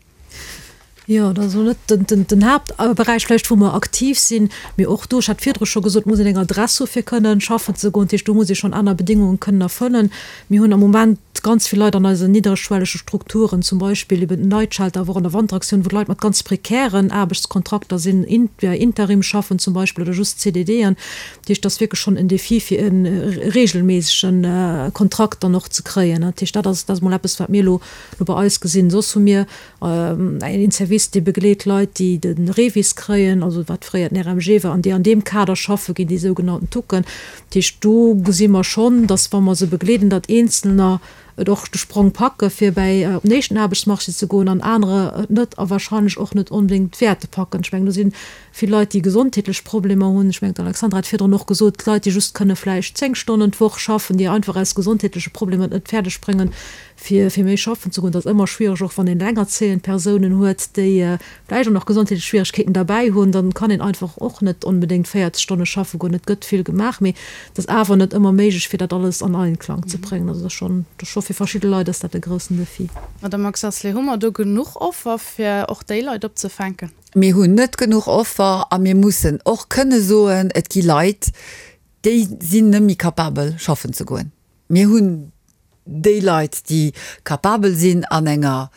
Jo, dat ass elo net den Haaptberäich vläicht, wou mer aktiv sinn. Mee och do, ech hat virdru scho gesot, muss een eng Adress hu fir kënnen schaffen ze goen. Dat heescht, do muss ee schonn aner Bedéngunge kënnen erfëllen. Mir hunn am Moment ganz vill Leit an eisen nidderschwellege Strukturen, zum Beispill eben den Night Shelter, awer och an der Wanteraktioun, wou d'Leit mat ganz prekären Aarbechtskontrakter sinn, via Interim schaffen zum Beispill oder just CDDen. Dat heescht, dat ass wierklech schonn en Défi, fir e reegelméissege Kontrakt dann och ze kréien. Dat heescht, dat ass, dat ass mol eppes, wat mir elo bei eis gesinn. Soss hu mir Een Service, dee begleet Leit, déi de REVIS kréien, also wat fréier den RMG war, an déi an deem Kader schaffe ginn, déi sougenannten Tucken. Dat heescht, do gesi mer schonn, datt, wa mer se begleeden, datt Eenzelner. Et och de Sprong packe fir bäi op den éischten Aarbechtsmarché ze goen an anerer et net a wahrscheinlech och net onbedéngt wäerte packen. Ech mengen, do si vill Leit, déi gesondheetlech Problemer hunn. Ech mengen, d'Alexandra hat virdrun och gesot, Leit, déi just kënne vläicht 10 Stonnen d'Woch schaffen, déi einfach aus gesondheetleche Problemer et net fäerdeg bréngen, fir fir méi schaffen ze goen. Dat ass ëmmer schwiereg, och wann een elengerzéiend Persounen huet, déi vläicht och nach gesondheetlech Schwieregkeeten derbäi hunn, dann kann een einfach och net onbedéngt 40 Stonne schaffe goen. Et gëtt vill gemaach, mee et ass awer net ëmmer méiglech, fir dat alles an Einklang ze bréngen. Also dat ass schonn, dat ass scho fir verschidde Leit ass dat e groussen Defi. Madame Marx-Asselet, hu mer do genuch Offer, fir och déi Leit opzefänken? Mir hunn net genuch Offer a mir mussen och kënne soen, et gi Leit, déi sinn net méi capabel schaffen ze goen. Mir hunn déi Leit, déi capabel sinn an enger,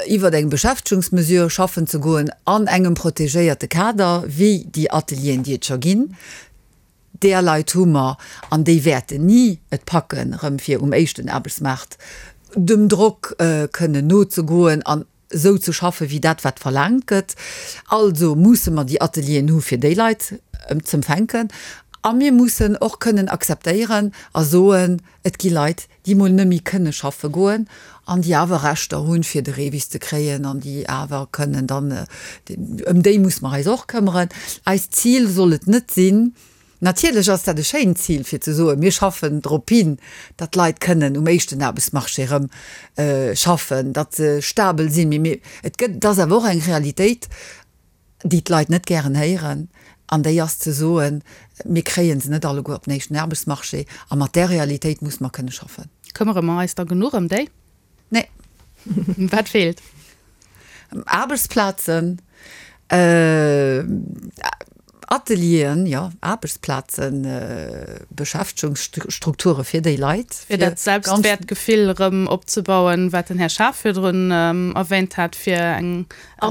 iwwert eng Beschäftegungsmesure schaffen ze goen an engem protegéierte Kader, wéi déi Atelieren, déi et scho ginn, där Leit hu mer an déi wäerten ni et packen, erëm fir um éischten Aarbechtsmaart dem Drock kënnen nozegoen an esou ze schaffen, wéi dat, wat verlaangt gëtt. Also musse mer déi Atelieren hu fir déi Leit z'empfänken. A mir mussen och kënnen akzeptéieren a soen, et gi Leit, déi mol net méi kënne schaffe goen an déi awer Rechter hunn, fir de REVIS ze kréien an déi awer kënnen dann, ëm déi musse mer eis och këmmeren. Eist Zil soll et net sinn, Natierlech ass dat e schéint Zil, fir ze soen, mir schaffen drop hin, datt d'Leit kënnen um éischten Aarbechtsmarché erëm schaffen, datt se stabel sinn. Mee mir, et gëtt, et ass awer och eng Realitéit, déi d'Leit net gären héieren, an déi ass ze soen, mir kréie se net alleguer op den éischten Aarbechtsmarché. A mat där Realitéit musse mer kënne schaffen. Këmmere mer eis da genuch ëm déi? Nee. Wat feelt? Aarbechtsplazen, Atelieren, jo, Aarbechtsplazen, Beschäftegungsstrukture fir déi Leit. Fir dat Selbstwäertgefill erëm opzebauen, wat den Här Schaaf virdrun erwähnt hat, fir eng, e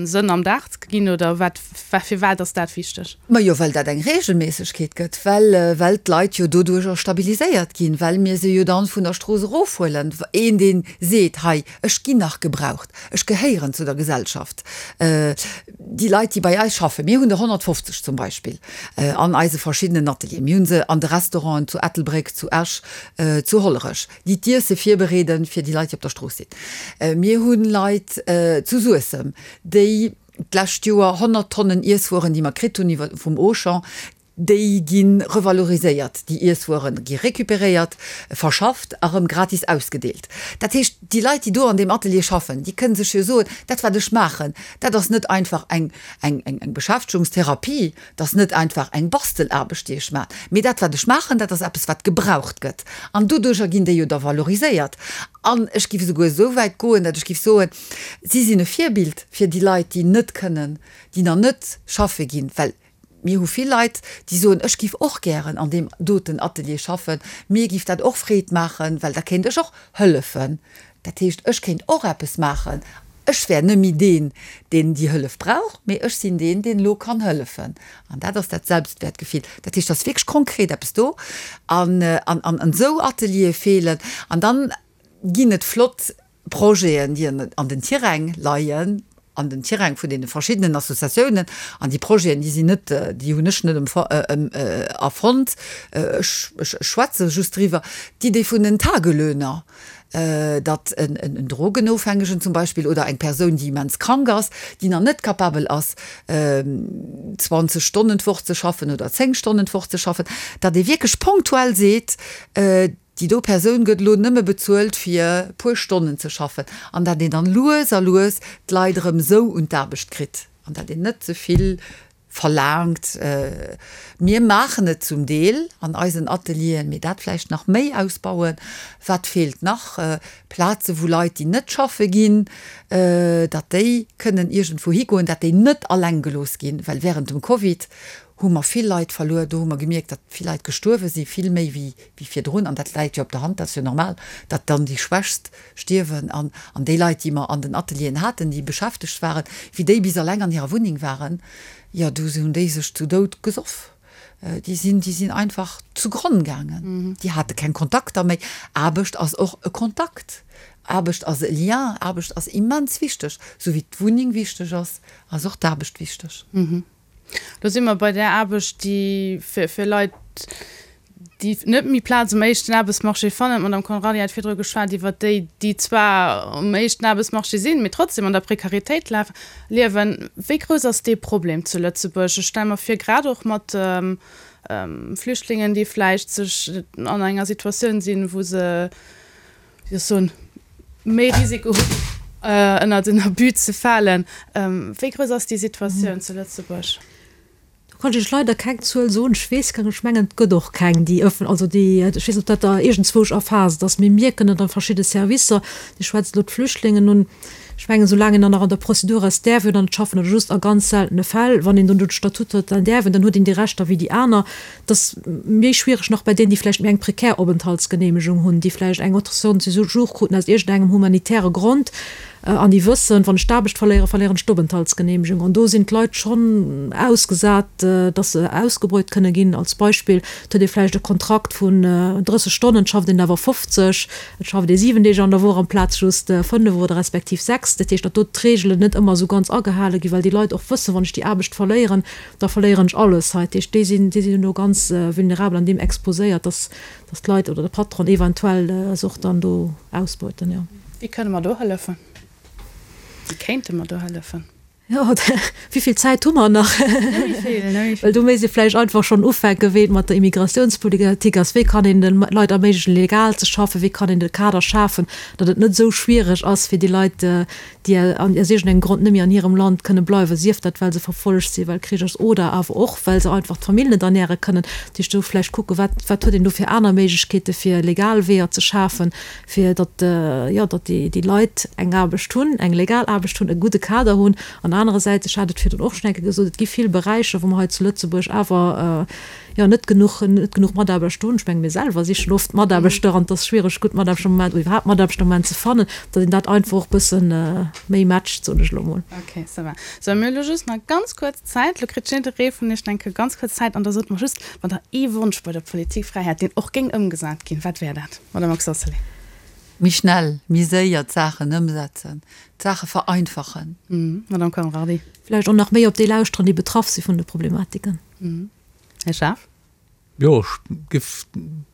Sënn am Dag ze ginn, oder wat, firwat ass dat wichteg? Majo, well dat eng Regelméissegkeet gëtt, well, well d'Leit jo doduercher stabiliséiert ginn, well mir se jo dann vun der Strooss erofhuelen. Een, dee seet, hei, ech ginn nach gebraucht, ech gehéieren zu der Gesellschaft. Déi Leit, déi bei eis schaffen, mir hunn der 150 zum Beispill an eise verschiddenen Atelieren, mir hu se an de Restauranten zu Ettelbréck, zu Esch, zu Hollerech, déi d'Iesse virbereeden fir déi Leit, déi op der Strooss sinn. Mir hu Leit zu Suessem, déi d'lescht Joer 100 Tonnen Iesswueren, déi mer kritt hunn iwwer vum Auchan, déi gi revaloriséiert. Déi Iesswuere gi recuperéiert, verschafft a rëm gratis ausgedeelt. Dat heescht, déi Leit, déi do an deem Atelier schaffen, déi kënne sech jo soen, dat wat ech maachen, dat ass net einfach eng, eng, eng, eng Beschäftegungstherapie, dat ass net einfach eng Bastelaarbecht, déi ech maachen, mee dat wat ech maachen, dat ass eppes wat gebraucht gëtt. An doduercher ginn déi jo da valoriséiert. An ech géif esouguer esou wäit goen, datt ech géif soen, Si sinn e Virbild fir déi Leit, déi net kënnen, déi nach net schaffe ginn, well mir hu vill Leit, déi soen, ech giff och gären an deem doten Atelier schaffen, mir giff dat och Freed maachen, well da kéint ech och hëllefen. Dat heescht, ech kéint och eppes maachen. Ech wär net méi deen, deen déi Hëllef brauch, mee ech sinn deen, deen elo kann hëllefen. An dat ass dat Selbstwäertgefill. Dat heescht, et ass wierklech konkret eppes do. An esou Ateliere feelen. An dann ginn et flott Projeten, déi an den Tiräng leien, an den Tiräng vun deene verschiddenen Associatiounen. An déi Projeten, déi sinn net, déi hunn ech net erfonnt, ech schwätze just driwwer, d'Idee vun den Tagelöhner, datt en Drogenofhängegen zum Beispill oder eng Persoun, déi immens krank ass, déi nach net capabel ass, 20 Stonnen d'Woch ze schaffen oder 10 Stonnen d'Woch ze schaffen, datt ee wierklech ponktuell seet, Déi do Persoun gëtt elo nëmme bezuelt fir puer Stonnen ze schaffen an dat een dann lues a lues d'Leit erëm esou un d'Aarbecht kritt an dat een net ze vill verlaangt. Mir maachen et zum Deel an eisen Atelieren, mee dat vläicht nach méi ausbauen. Wat feelt nach? Plaze wou Leit déi net schaffe ginn, datt déi kënnen iergendwou higoen, dat déi net alleng gelooss ginn, well während dem Covid hu mer vill Leit verluer. Do hu mer gemierkt, datt vill Leit gestuerwe sinn, vill méi wéi wéi virdrun. An dat läit jo op der Hand, dat ass jo normal, datt dann déi Schwächst stierwen. An an déi Leit, déi mer an den Atelieren haten, déi beschäftegt waren, wéi déi bis alleng an hirer Wunneng waren, jo, du hunn déi sech zu Doud gesoff. Déi sinn, déi sinn einfach zu Gronn gaangen. Déi hate keng Kontakter méi. Aarbecht ass och e Kontakt. Aarbecht ass e Lien. Aarbecht ass immens wichteg. Esou wéi d'Wunneng wichteg ass, ass och d'Aarbecht wichteg. Do si mer bei där Aarbecht, déi fir Leit. Déi net méi Plaz um éischten Aarbechtsmarché fannen. D'Madame Conrardy hat virdru geschwat iwwert déi, déi zwar um éischten Aarbechtsmarché sinn, mee trotzdem an der Prekaritéit liewen. Wéi grouss ass dee Problem zu Lëtzebuerg? Ech stelle mer vir, grad och mat Flüchtlingen, déi vläicht sech an enger Situatioun sinn, wou se, wéi soll ech soen, méi Risiko hunn, ënnert en Abus ze falen. Wéi grouss ass déi Situatioun zu Lëtzebuerg? Do kann ech Iech leider keng Zuel soen. Ech weess keng, ech mengen, et gëtt och keng, déi ëffen, also déi, ech weess net, ob dat da iergendzwousch erfaasst ass. Mir mierken et a verschidde Servicer, Dir schwätzt elo d'Flüchtlingen un, ech mengen, soulaang een dann nach an der Prozedur ass, däerf een dann net schaffen oder just a ganz seltene Fäll, wann een dann do de Statut huet, dann däerf een, dann huet een déi Rechter wéi déi aner. Et ass méi schwiereg nach bei deenen, déi vläicht méi eng prekär Openthaltsgeneemegung hunn, déi vläicht eng Autorisation de séjour kruten aus iergendengem humanitäre Grond an déi wëssen, wann ech d'Aarbecht verléieren, verléieren ech d'Openthaltsgeneemegung. An do sinn d'Leit schonn ausgesat, dass se ausgebeut kënne ginn. Als Beispill, et huet ee vläicht e Kontrakt vun 30 Stonnen, et schafft een awer 50, et schafft ee 7 Deeg an der Woch amplaz just 5 oder respektiv 6. Dat heescht, datt do d'Reegelen net ëmmer esou ganz agehale ginn, well déi Leit och wëssen, wann ech déi Aarbecht verléieren, da verléieren ech alles hei. Dat heescht, déi sinn, déi sinn elo ganz vulnerabel an deem exposéiert, dass, dass d'Leit oder de Patron eventuell se och dann do ausbeuten, jo. Wéi kënne mer do hëllefen? Wéi kéinte mer do hëllefen? Jo, wéi vill Zäit hu mer nach? Net méi vill, net méi vill. Well do misst ee vläicht einfach schonn ufänken, wéi et mat der Immigratiounspolitik ass. Wéi kann een de Leit erméiglechen, legal ze schaffen? Wéi kann een de Kader schafen, datt et net esou schwiereg ass fir déi Leit, déi aus iergendengem Grond net méi an hirem Land kënne bleiwen, sief dat well se verfollegt sinn, well Krich ass oder awer och well se einfach d'Famill net ernäre kënnen. Dat heescht do vläicht kucken, wat wat huet een do fir aner Méiglechkeete fir legal Weeër ze schafen, fir datt, jo, datt déi déi Leit eng Aarbecht hunn, eng legal Aarbecht hunn, e gudde Kader hunn. An anerersäits, ech hat et virdrun och schonn eng Kéier gesot, et gi vill Beräicher, wou mer hei zu Lëtzebuerg awer, jo, net genuch, net genuch Mataarbechter hunn. Ech menge mir selwer sichen oft Mataarbechter an et ass schwiereg, gutt Mataarbechter am Moment oder iwwerhaapt Mataarbechter am Moment ze fannen, datt een dat einfach och e bësse méi matcht, soen ech elo mol. Ok, ça va. Sou, mir hu lo just nach ganz kuerz Zäit. Lo kritt jidderee vun iech eng Kéier ganz kuerz Zäit an da sot mer just, wann der ee Wonsch bei der Politik fräi hätt, deen och géing ëmgesat ginn, wat wär dat, Madame Oxacelay? Méi schnell, méi séier d'Saachen ëmsetzen, d'Saache vereinfachen. Madame Conrardy. Vläicht och nach méi op déi lauschteren, déi betraff si vun de Problematiken. Här Schaaf? Jo, ech giff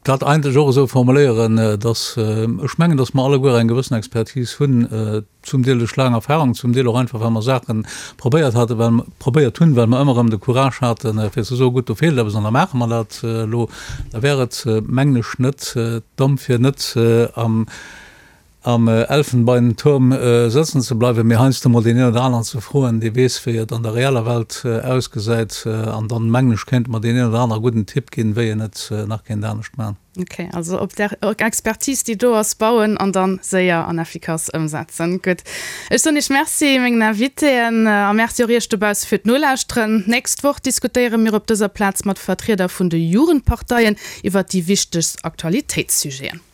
dat eigentlech och esou formuléieren, dass ech mengen, dass mer alleguer eng gewëssen Expertise hunn, zum Deel duerch laang Erfahrung, zum Deel och einfach, well mer Saache probéiert haten, well mer probéiert hunn, well mer ëmmer erëm de Courage haten, fir ze soen, gutt, do feelt eppes an da maache mer dat elo. Da wär et, mengen ech, net domm, fir net am am Elfenbeinturm sëtzen ze bleiwen, mee heiansdo mol deen een oder aneren ze froen, dee weess, wéi et an der reeller Welt ausgesäit. An dann, mengen ech, kéinte mer deen een oder anere gudden Tipp ginn, wéi een et nach kéint anescht maachen. Ok, also op där Expertise, déi do ass, bauen an dann séier an effikass ëmsetzen. Gutt, ech soen Iech Merci, mengen Invitéen, a Merci och Iech dobausse fir d'Nolauschteren. D'nächst Woch diskutéiere mir op dëser Plaz mat Vertrieder vun de Jugendparteien iwwert déi wichtegst Aktualitéitssujeten.